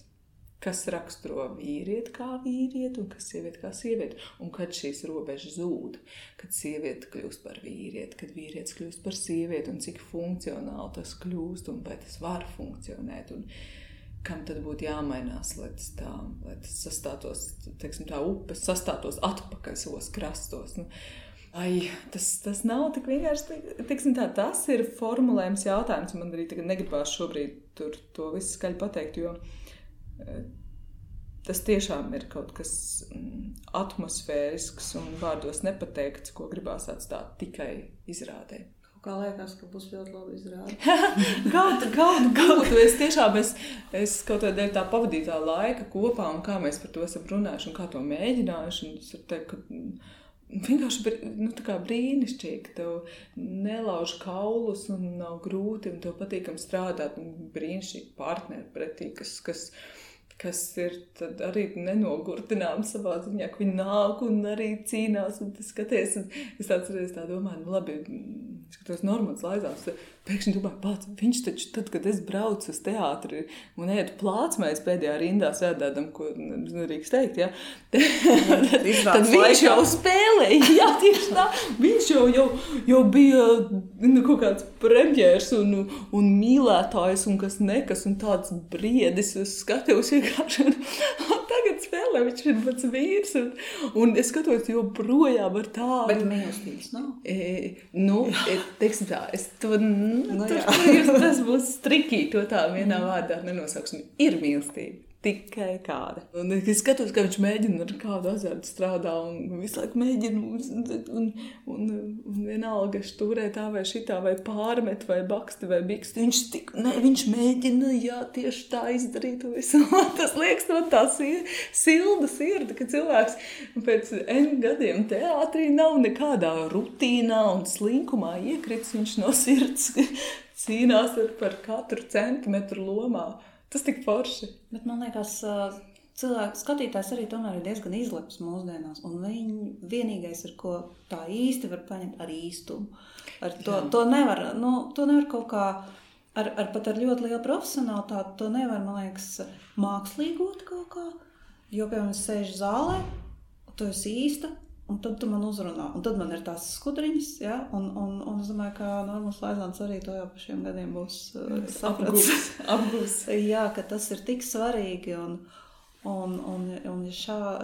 Kas raksturo vīrieti kā vīrieti un kas sievieti kā sievieti. Un kad šīs robežas zūd, kad sieviete kļūst par vīrieti, kad vīrietis kļūst par sievieti un cik funkcionāli tas kļūst un vai tas var funkcionēt un kam tad būtu jāmainās, lai tas sastātos, teiksim tā, upes sastātos atpakaļ savos krastos. Tas nav tik vienkārši, teiksim tā, tas ir formulējums jautājums, man arī tagad negribās šobrīd to visu skaļi pateikt, jo tas tiešām ir kaut kas atmosfērisks un vārdos nepateikts, ko gribās atstāt tikai izrādē. Kā liekas, ka būs ļoti labi izrādi. Kaut, es kaut kādā dēļ tā pavadītā laika kopā un kā mēs par to esam runājuši un kā to mēģinājuši, un es varu teikt, ka vienkārši tā kā brīnišķīgi, tev nelauž kaulus un nav grūti un tev patīkam strādāt un brīnišķīgi partneri pretī, kas ir tad arī nenogurtinām savā ziņā, ka viņi nāk un arī cīnās un tas skaties. Un es atceros tā domāju, labi, skatos Normans Laizāns, pēkšņi domāju, pats, viņš taču tad, kad es braucu uz teātri un ētu plācmais pēdējā rindā sēdēdam, ko nedrīkst teikt, ja? Tad viņš jau spēlēja, jā, tieši tā, viņš jau bija kaut kāds premjērs un mīlētājs un kas nekas un tāds briedis uz skatuves vienkārši. Un tagad spēlē, viņš ir pats vīrs un es skatos joprojām ar tādu. Bet mīlestības nav? Teiksim tā, es to, tas būs trikī, to tā vienā vārdā nenosauksim. Ir mīlestība. Tikai kāda. Un es skatos, ka viņš mēģina ar kādu azartu strādā un visu laiku mēģina un vienalga štūrē tā vai šitā vai pārmet vai baksti vai biksti. Viņš mēģina, jā, tieši tā izdarīt visu. Tas liekas no tā silda sirda, ka cilvēks pēc N gadiem teātrī nav nekādā rutīnā un slinkumā iekrits. Viņš no sirds cīnās par katru centimetru lomā. Tas tik forši. Bet man liekas, cilvēku skatītājs arī tomēr ir diezgan izleps mūsdienās, un viņi vienīgais, ar ko tā īsti var paņemt, ar īstumu. To nevar kaut kā, pat ar ļoti lielu profesionalitāti, to nevar, man liekas, mākslīgot kaut kā, jo, piemēram, es sēžu zālē, tu esi īsta, un tad tu man uzrunā. Un tad man ir tās skudriņas, ja? Un es domāju, ka Normans Laizāns arī to jau pa šiem gadiem būs sapratis. Apgūs. Jā, ka tas ir tik svarīgi, un ja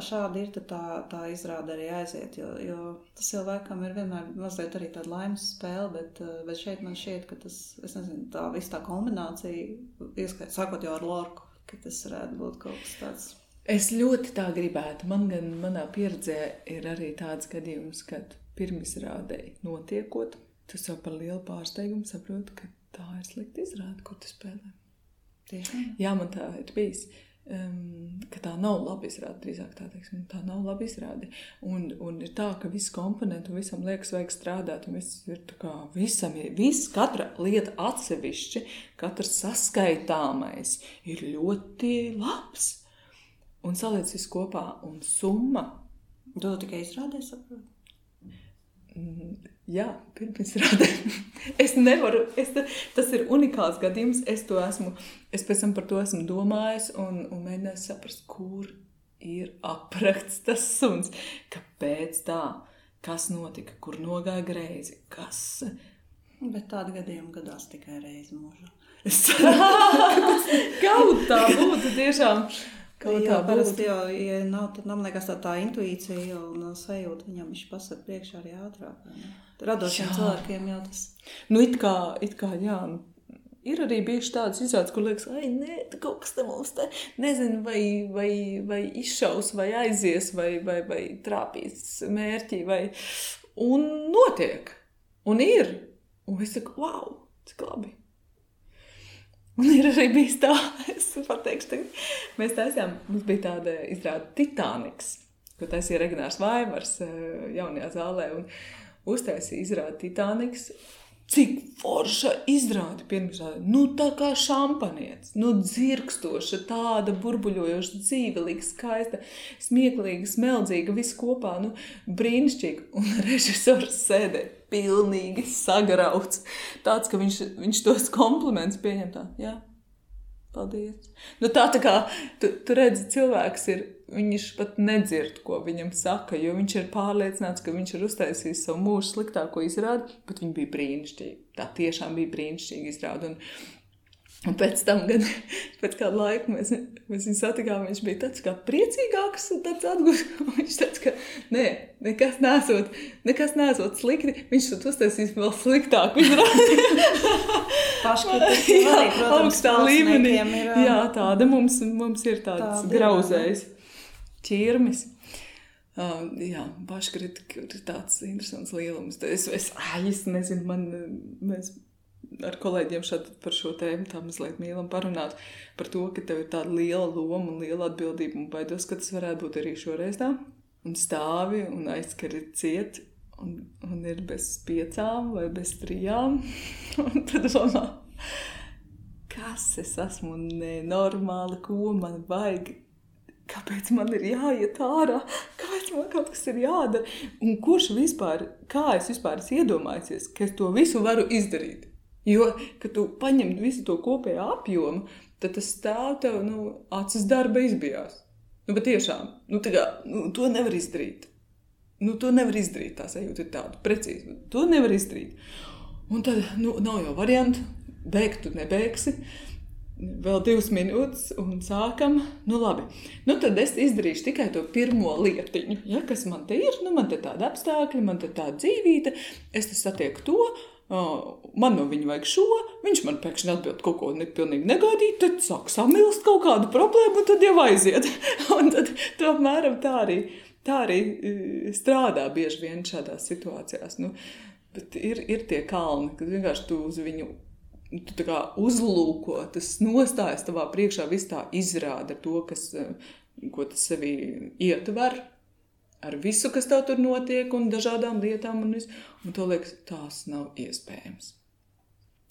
šādi ir, tad tā izrāda arī aiziet, jo tas jau laikam ir vienmēr mazliet arī tāda laimes spēle, bet šeit man šķiet, ka tas, es nezinu, tā visa tā kombinācija, sākot jau ar Lorku, ka tas varētu būt kaut kas tāds. Es ļoti tā gribētu. Manā pieredzē ir arī tāds gadījums, kad pirmizrādēji notiekot, tu jau par lielu pārsteigumu saproti, ka tā ir slikta izrāde, kur tu spēlē. Tiešām? Jā, man tā ir bijis, ka tā nav laba izrāde, drīzāk tā teiksim, tā nav laba izrāde. Un ir tā, ka viss komponentu un visam liekas vajag strādāt, un viss ir tā kā katra lieta atsevišķi, katrs saskaitāmais ir ļoti labs. Un saliec visu kopā, un summa. Tu tikai izrādē, saproti? Jā, pirmizrādē. Es nevaru, tas ir unikāls gadījums, es pēc tam par to esmu domājis un mēģinājis saprast, kur ir aprakts tas suns, kāpēc tā, kas notika, kur nogāja greizi, kas... Bet tāda gadījuma gadās tikai reizi mūžā. Kaut tā būtu tiešām... Jā, parasti jau, ja nav, tad man liekas tā intuīcija un sajūta viņam viņš pasaka priekšā arī ātrāk. Radošiem cilvēkiem jau tas. It kā, jā, ir arī bijuši tādas izrādes, kur liekas, nē, kaut kas te mums te, nezinu, vai izšaus, vai aizies, vai trāpīs mērķi, un notiek, un ir. Un es saku, wow, cik labi. Un ir arī bijis tā, es pateikšu tagad, mēs taisījām, mums bija tāda izrāde Titaniks, ko taisīja Regnārs Vaivars jaunajā zālē, un uztaisīja izrāde Titaniks. Cik forša izrāde pirmizrāde, tā kā šampanietis, dzirkstoša, tāda burbuļojoša, dzīvelīga, skaista, smieklīga, smeldzīga, viss kopā, brīnišķīgi. Un režisors sēdē pilnīgi sagrauts. Tāds, ka viņš tos komplimentus pieņem tā, jā, paldies. Tā kā tu redzi, cilvēks ir, viņš pat nedzird, ko viņam saka, jo viņš ir pārliecināts, ka viņš ir uztaisījis savu mūžu sliktāko izrādi, bet viņi bija brīnišķīgi. Tā tiešām bija brīnišķīgi izrādi. Un pēc tam, pēc kāda laika mēs viņu satikām, viņš bija tāds kā priecīgāks un tāds atgūst. Viņš tāds, ka nekas nesot slikti, viņš tad uztaisīs vēl sliktāku izrādi. Paškritika arī, protams, augstā līmenī. Jā, tāda mums ir tāds grauzējs ķirmis. Jā, paškritika ir tāds interesants lielums. Es nezinu, mēs ar kolēģiem par šo tēmu tā mazliet mīlam parunāt par to, ka tev ir tāda liela loma un liela atbildība un baidos, ka tas varētu būt arī šoreiz tā. Un stāvi un aizskari ciet un ir bez 5 vai bez 3. Un tad domā, kas es esmu nenormāli, ko man vajag, kāpēc man ir jāiet ārā, kāpēc man kaut kas ir jādara. Un kurš vispār, kā es vispār iedomājusies, ka es to visu varu izdarīt? Jo, kad tu paņem visu to kopējo apjomu, tad tas stāv tev, acis darba izbijās. Bet tiešām, to nevar izdarīt. To nevar izdarīt, tā sajūta ir tāda, precīzi. To nevar izdarīt. Un tad, nav jau variantu, beigt tu nebeigsi. Vēl 2 minūtes un sākam. Labi. Tad es izdarīšu tikai to pirmo lietiņu. Ja, kas man te ir? Man te tāda apstākļa, man te tāda dzīvīte. Es te satieku to. Man no viņa vajag šo, viņš man pēkšņi atbild kaut ko pilnīgi negaidīt, tad sāk samilst kaut kādu problēmu, un tad jau aiziet. Un tad to apmēram tā arī strādā bieži vien šādās situācijās. Bet ir tie kalni, kad vienkārši tu uz viņu tu tā kā uzlūko, tas nostājas tavā priekšā, viss tā izrāda to, ko tas sevī ietver. Ar visu, kas tev tur notiek, un dažādām lietām, un to liekas, tās nav iespējams.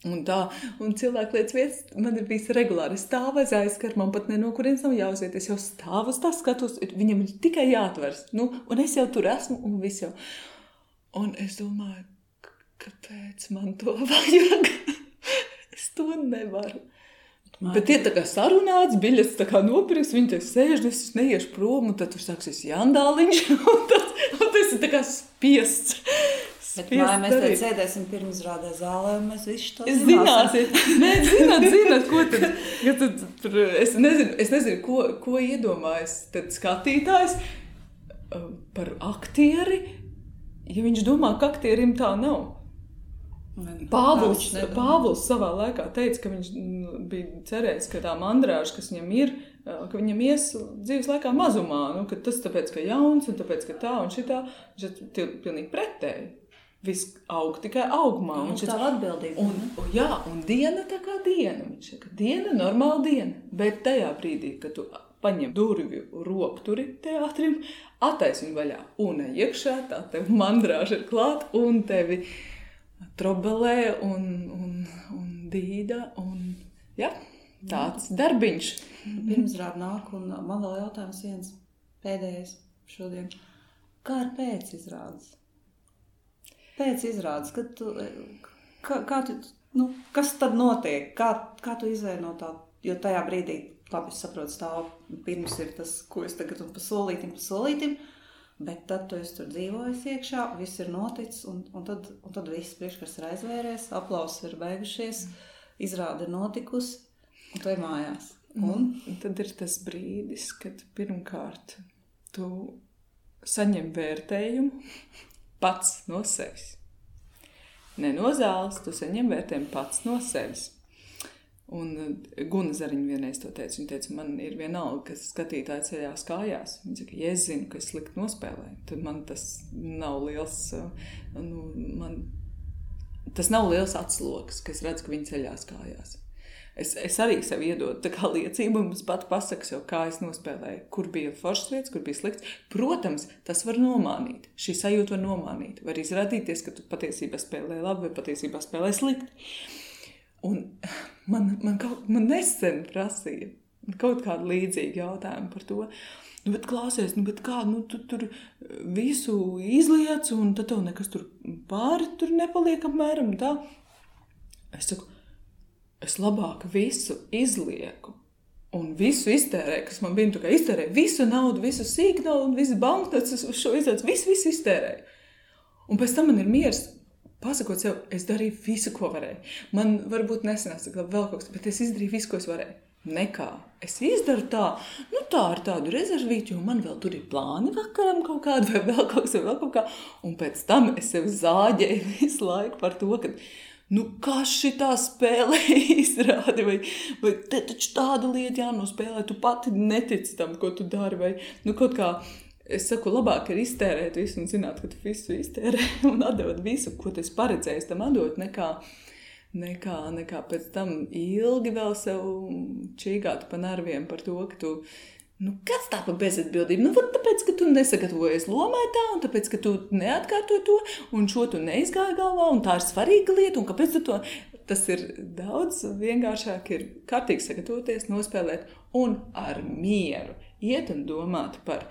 Un cilvēku lietas vietas man ir bijis regulāri. Es stāvu aiz aizskar, man pat no kurienes nav jāuziet. Es jau stāvu uz tā skatos, viņam ir tikai jāatvers. Un es jau tur esmu, un viss jau. Un es domāju, kāpēc man to vajag? Es to nevaru. Bet ir tā kā sarunāts, biļets tā kā nopirks, viņi te sēž, es neiešu prom, un tad tur sāksies jandāliņš, un tas ir tā kā spiests. Bet mēs te sēdēsim pirmizrādē zālē, un mēs visi to zināsim. Nē, zināt, ko tad, es nezinu, ko iedomājas tad skatītājs par aktieri, ja viņš domā, ka aktierim tā nav. Pāvils savā laikā teica, ka viņš bija cerējis, ka tā mandrāža, kas viņam ir, ka viņam ies dzīves laikā mazumā, ka tas tāpēc, ka jauns, un tāpēc, ka tā un šitā, viņš ir pilnīgi pretēji. Viss aug tikai augumā. Tā atbildība. Un diena tā kā diena. Viņš saka, diena, normāla diena. Bet tajā brīdī, kad tu paņem durvju ropturi teātrim, atais viņu vaļā un iekšā, tā tev mandrāža ir klāt un tevi trobelē un dīda un tāds darbiņš. Pirmizrāde nāk un man vēl jautājums viens pēdējais šodien. Kā ar pēcizrādes? Pēcizrādes, kad tu, kas tad notiek? Kā tu izvēli no tā? Jo tajā brīdī, labi, es saprotu, stāv pirms ir tas, ko es tagad un pa solītim, bet tad tu esi tur dzīvojis iekšā, viss ir noticis, un tad viss priekškars ir aizvēries, aplausi ir beigušies, izrāde ir notikusi, un tu ir mājās. Un tad ir tas brīdis, kad pirmkārt tu saņem vērtējumu pats no sevis. Ne no zāles, tu saņem vērtējumu pats no sevis. Un Guna Zariņa vienreiz to teica. Viņa teica, man ir vienalga, kas skatītāji ceļās kājās. Viņa saka, ja es zinu, ka es slikti nospēlēju, tad man tas nav liels, tas nav liels atsloks, ka es redzu, ka viņi ceļās kājās. Es arī sev iedodu tā kā liecību, un es pat pasaku sev, kā es nospēlēju, kur bija foršas lietas, kur bija slikts. Protams, tas var nomānīt, šī sajūta var nomānīt, var izrādīties, ka tu patiesībā spēlē labi vai patiesībā spēlē slikti. Un man nesen prasīja kaut kādu līdzīgu jautājumu par to. Bet klausies, bet kā, tu tur visu izliec, un tad tev nekas tur pāri tur nepaliek apmēram tā. Es saku, es labāk visu izlieku un visu iztērēju, kas man bija, kā iztērēju visu naudu, visu sīk naudu, visu banknotes, šo izliecu, visu iztērēju. Un pēc tam man ir miers. Pasakot sev, es darīju visu, ko varēju. Man varbūt nesanāca vēl kaut kas, bet es izdarīju visu, ko es varēju. Nekā. Es izdaru tā, tā ar tādu rezervīti, jo man vēl tur ir plāni vakaram kaut kādu, vai vēl kaut kā. Un pēc tam es sev zāģēju visu laiku par to, ka, kā šitā spēlē izrādi, vai te taču tāda lieta jānospēlē, tu pati netici tam, ko tu dari, vai kaut kā. Es saku, labāk ir iztērēt visu un zināt, ka tu visu iztērē un atdot visu, ko tu esi paredzējis tam atdot, nekā pēc tam ilgi vēl sev čīgāt pa nerviem par to, ka tu, kas tā pa bezatbildību? Tāpēc, ka tu nesagatavojies lomai tā, un tāpēc, ka tu neatkārtoji to, un šo tu neizgāji galvā, un tā ir svarīga lieta, un kāpēc tu to? Tas ir daudz vienkāršāk, ir kārtīgi sagatavoties, nospēlēt un ar mieru iet un domāt par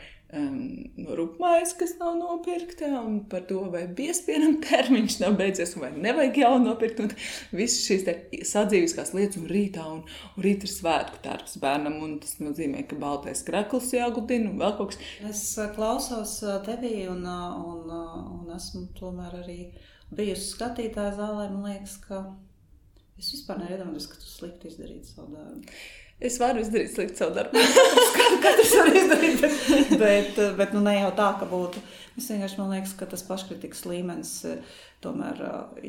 rupmais, kas nav nopirkta, un par to, vai biespienam termiņš nav beidzies, vai nevajag jau nopirkt, un visas šīs te sadzīviskās lietas, un rītā ir svētku tērps bērnam, un tas nozīmē, ka baltais krekls jāgudina, un vēl kaut kas. Es klausos tevī, un esmu tomēr arī bijusi skatītāja zālē, man liekas, ka es vispār neiedomājos, ka tu slikti izdarītu savu darbu. Es varu izdarīt slikti savu darbu. Katrs var izdarīt, bet nu ne jau tā, ka būtu. Es vienkārši man liekas, ka tas paškritikas līmenis tomēr,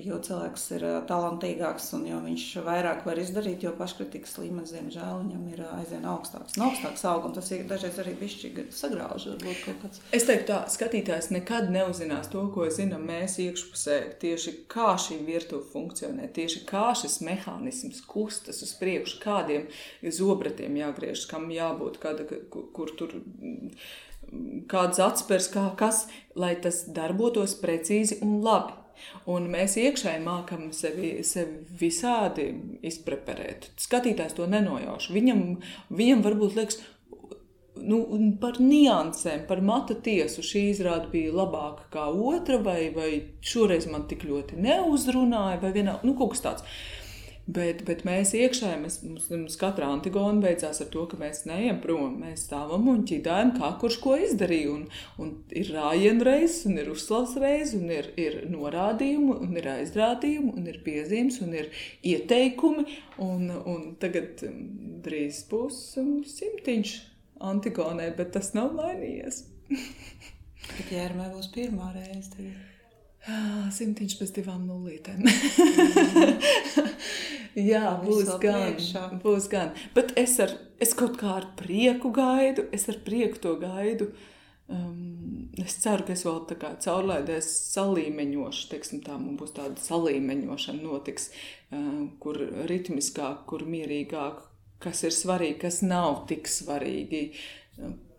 jo cilvēks ir talantīgāks un jo viņš vairāk var izdarīt, jo paškritikas līmenis, diemžēl, viņam ir aizvien augstāks. Un augstāks aug, un tas ir dažreiz arī bišķi sagrauž, varbūt kaut kāds. Es teiktu tā, skatītājs nekad neuzzinās to, ko zinām mēs iekšpusē, tieši kā šī virtuve funkcionē, tieši kā šis mehānisms kustas uz priekšu, kādiem zobratiem jāgriež, kam jābūt, kur tur kāds atspers, kas, lai tas darbotos precīzi un labi. Un mēs iekšēji mākam sevi visādi izpreparēt. Skatītājs to nenojauš. Viņam varbūt liekas, par niansēm, par mata tiesu šī izrāde bija labāka kā otra, vai šoreiz man tik ļoti neuzrunāja, vai vienā, kaut kas tāds. Bet mēs iekšēji, mums katra Antigona beidzās ar to, ka mēs neejam prom, mēs stāvam un ķidājam, kā kurš ko izdarīja, un ir rājienu reizes, un ir uzslavas reizes, un ir norādījumi, un ir aizrādījumi, un ir piezīmes, un ir ieteikumi, un tagad drīz būs 100 Antigonai, bet tas nav mainījies. Bet Jērmē būs pirmā reize tagad. 100 bez 2 nulītēm. Jā, būs gan. Bet es kaut kā ar prieku gaidu, to gaidu. Es ceru, ka es vēl tā kā caurlaidēs salīmeņošu, teiksim tā, man būs tāda salīmeņošana notiks, kur ritmiskāk, kur mierīgāk, kas ir svarīgi, kas nav tik svarīgi,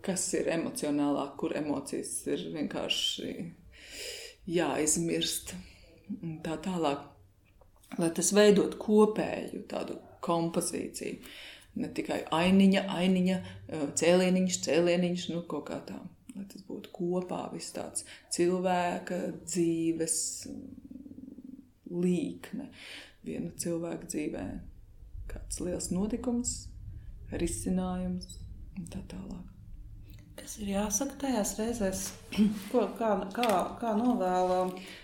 kas ir emocionālāk, kur emocijas ir vienkārši jāizmirst tā tālāk, lai tas veidot kopēju tādu kompozīciju. Ne tikai ainiņa, cēlieniņš, kaut kā tā. Lai tas būtu kopā viss tāds cilvēka dzīves līkne. Viena cilvēka dzīvē kāds liels notikums, risinājums un tā tālāk. Kas ir jāsaka tajās reizēs? Kā novēla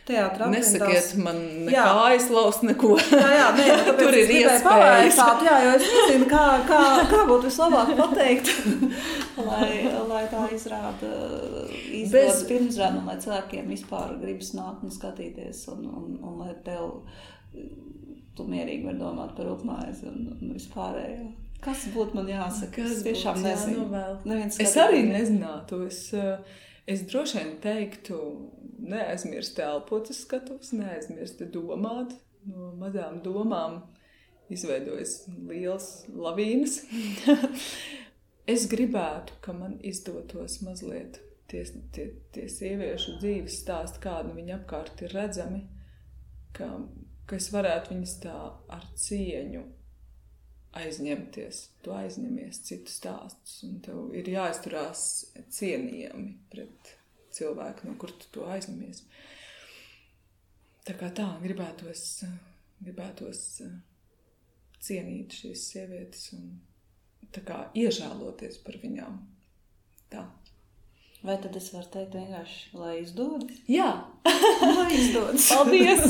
teātra aprindās? Nesakiet man nekā aizlaust, neko. Jā, tur ir iespējas. Jā, jo es nezinu, kā būtu vislabāk pateikt, lai tā izrāda izdodas pirmizrāda, un lai cilvēkiem vispār gribas nākt un skatīties, un lai tu mierīgi var domāt par rupmaizi un vispārējo. Kas būtu man jāsaka? Es tiešām nezinu. Es arī nezinātu. Es droši vien teiktu, neaizmirst elpot uz skatuves, neaizmirst domāt. No mazām domām izveidojas liels lavīnas. Es gribētu, ka man izdotos mazliet tie sieviešu dzīves stāsti, kādi viņi apkārt ir redzami, ka es varētu viņas tā ar cieņu aizņemties. Tu aizņemies citu stāstus, un tev ir jāizturās cienījami pret cilvēku, no kur tu to aizņemies. Tā kā tā, gribētos cienīt šīs sievietes un tā kā iežēloties par viņām. Tā. Vai tad es varu teikt vienkārši, lai izdodas? Jā! Lai izdodas. Paldies!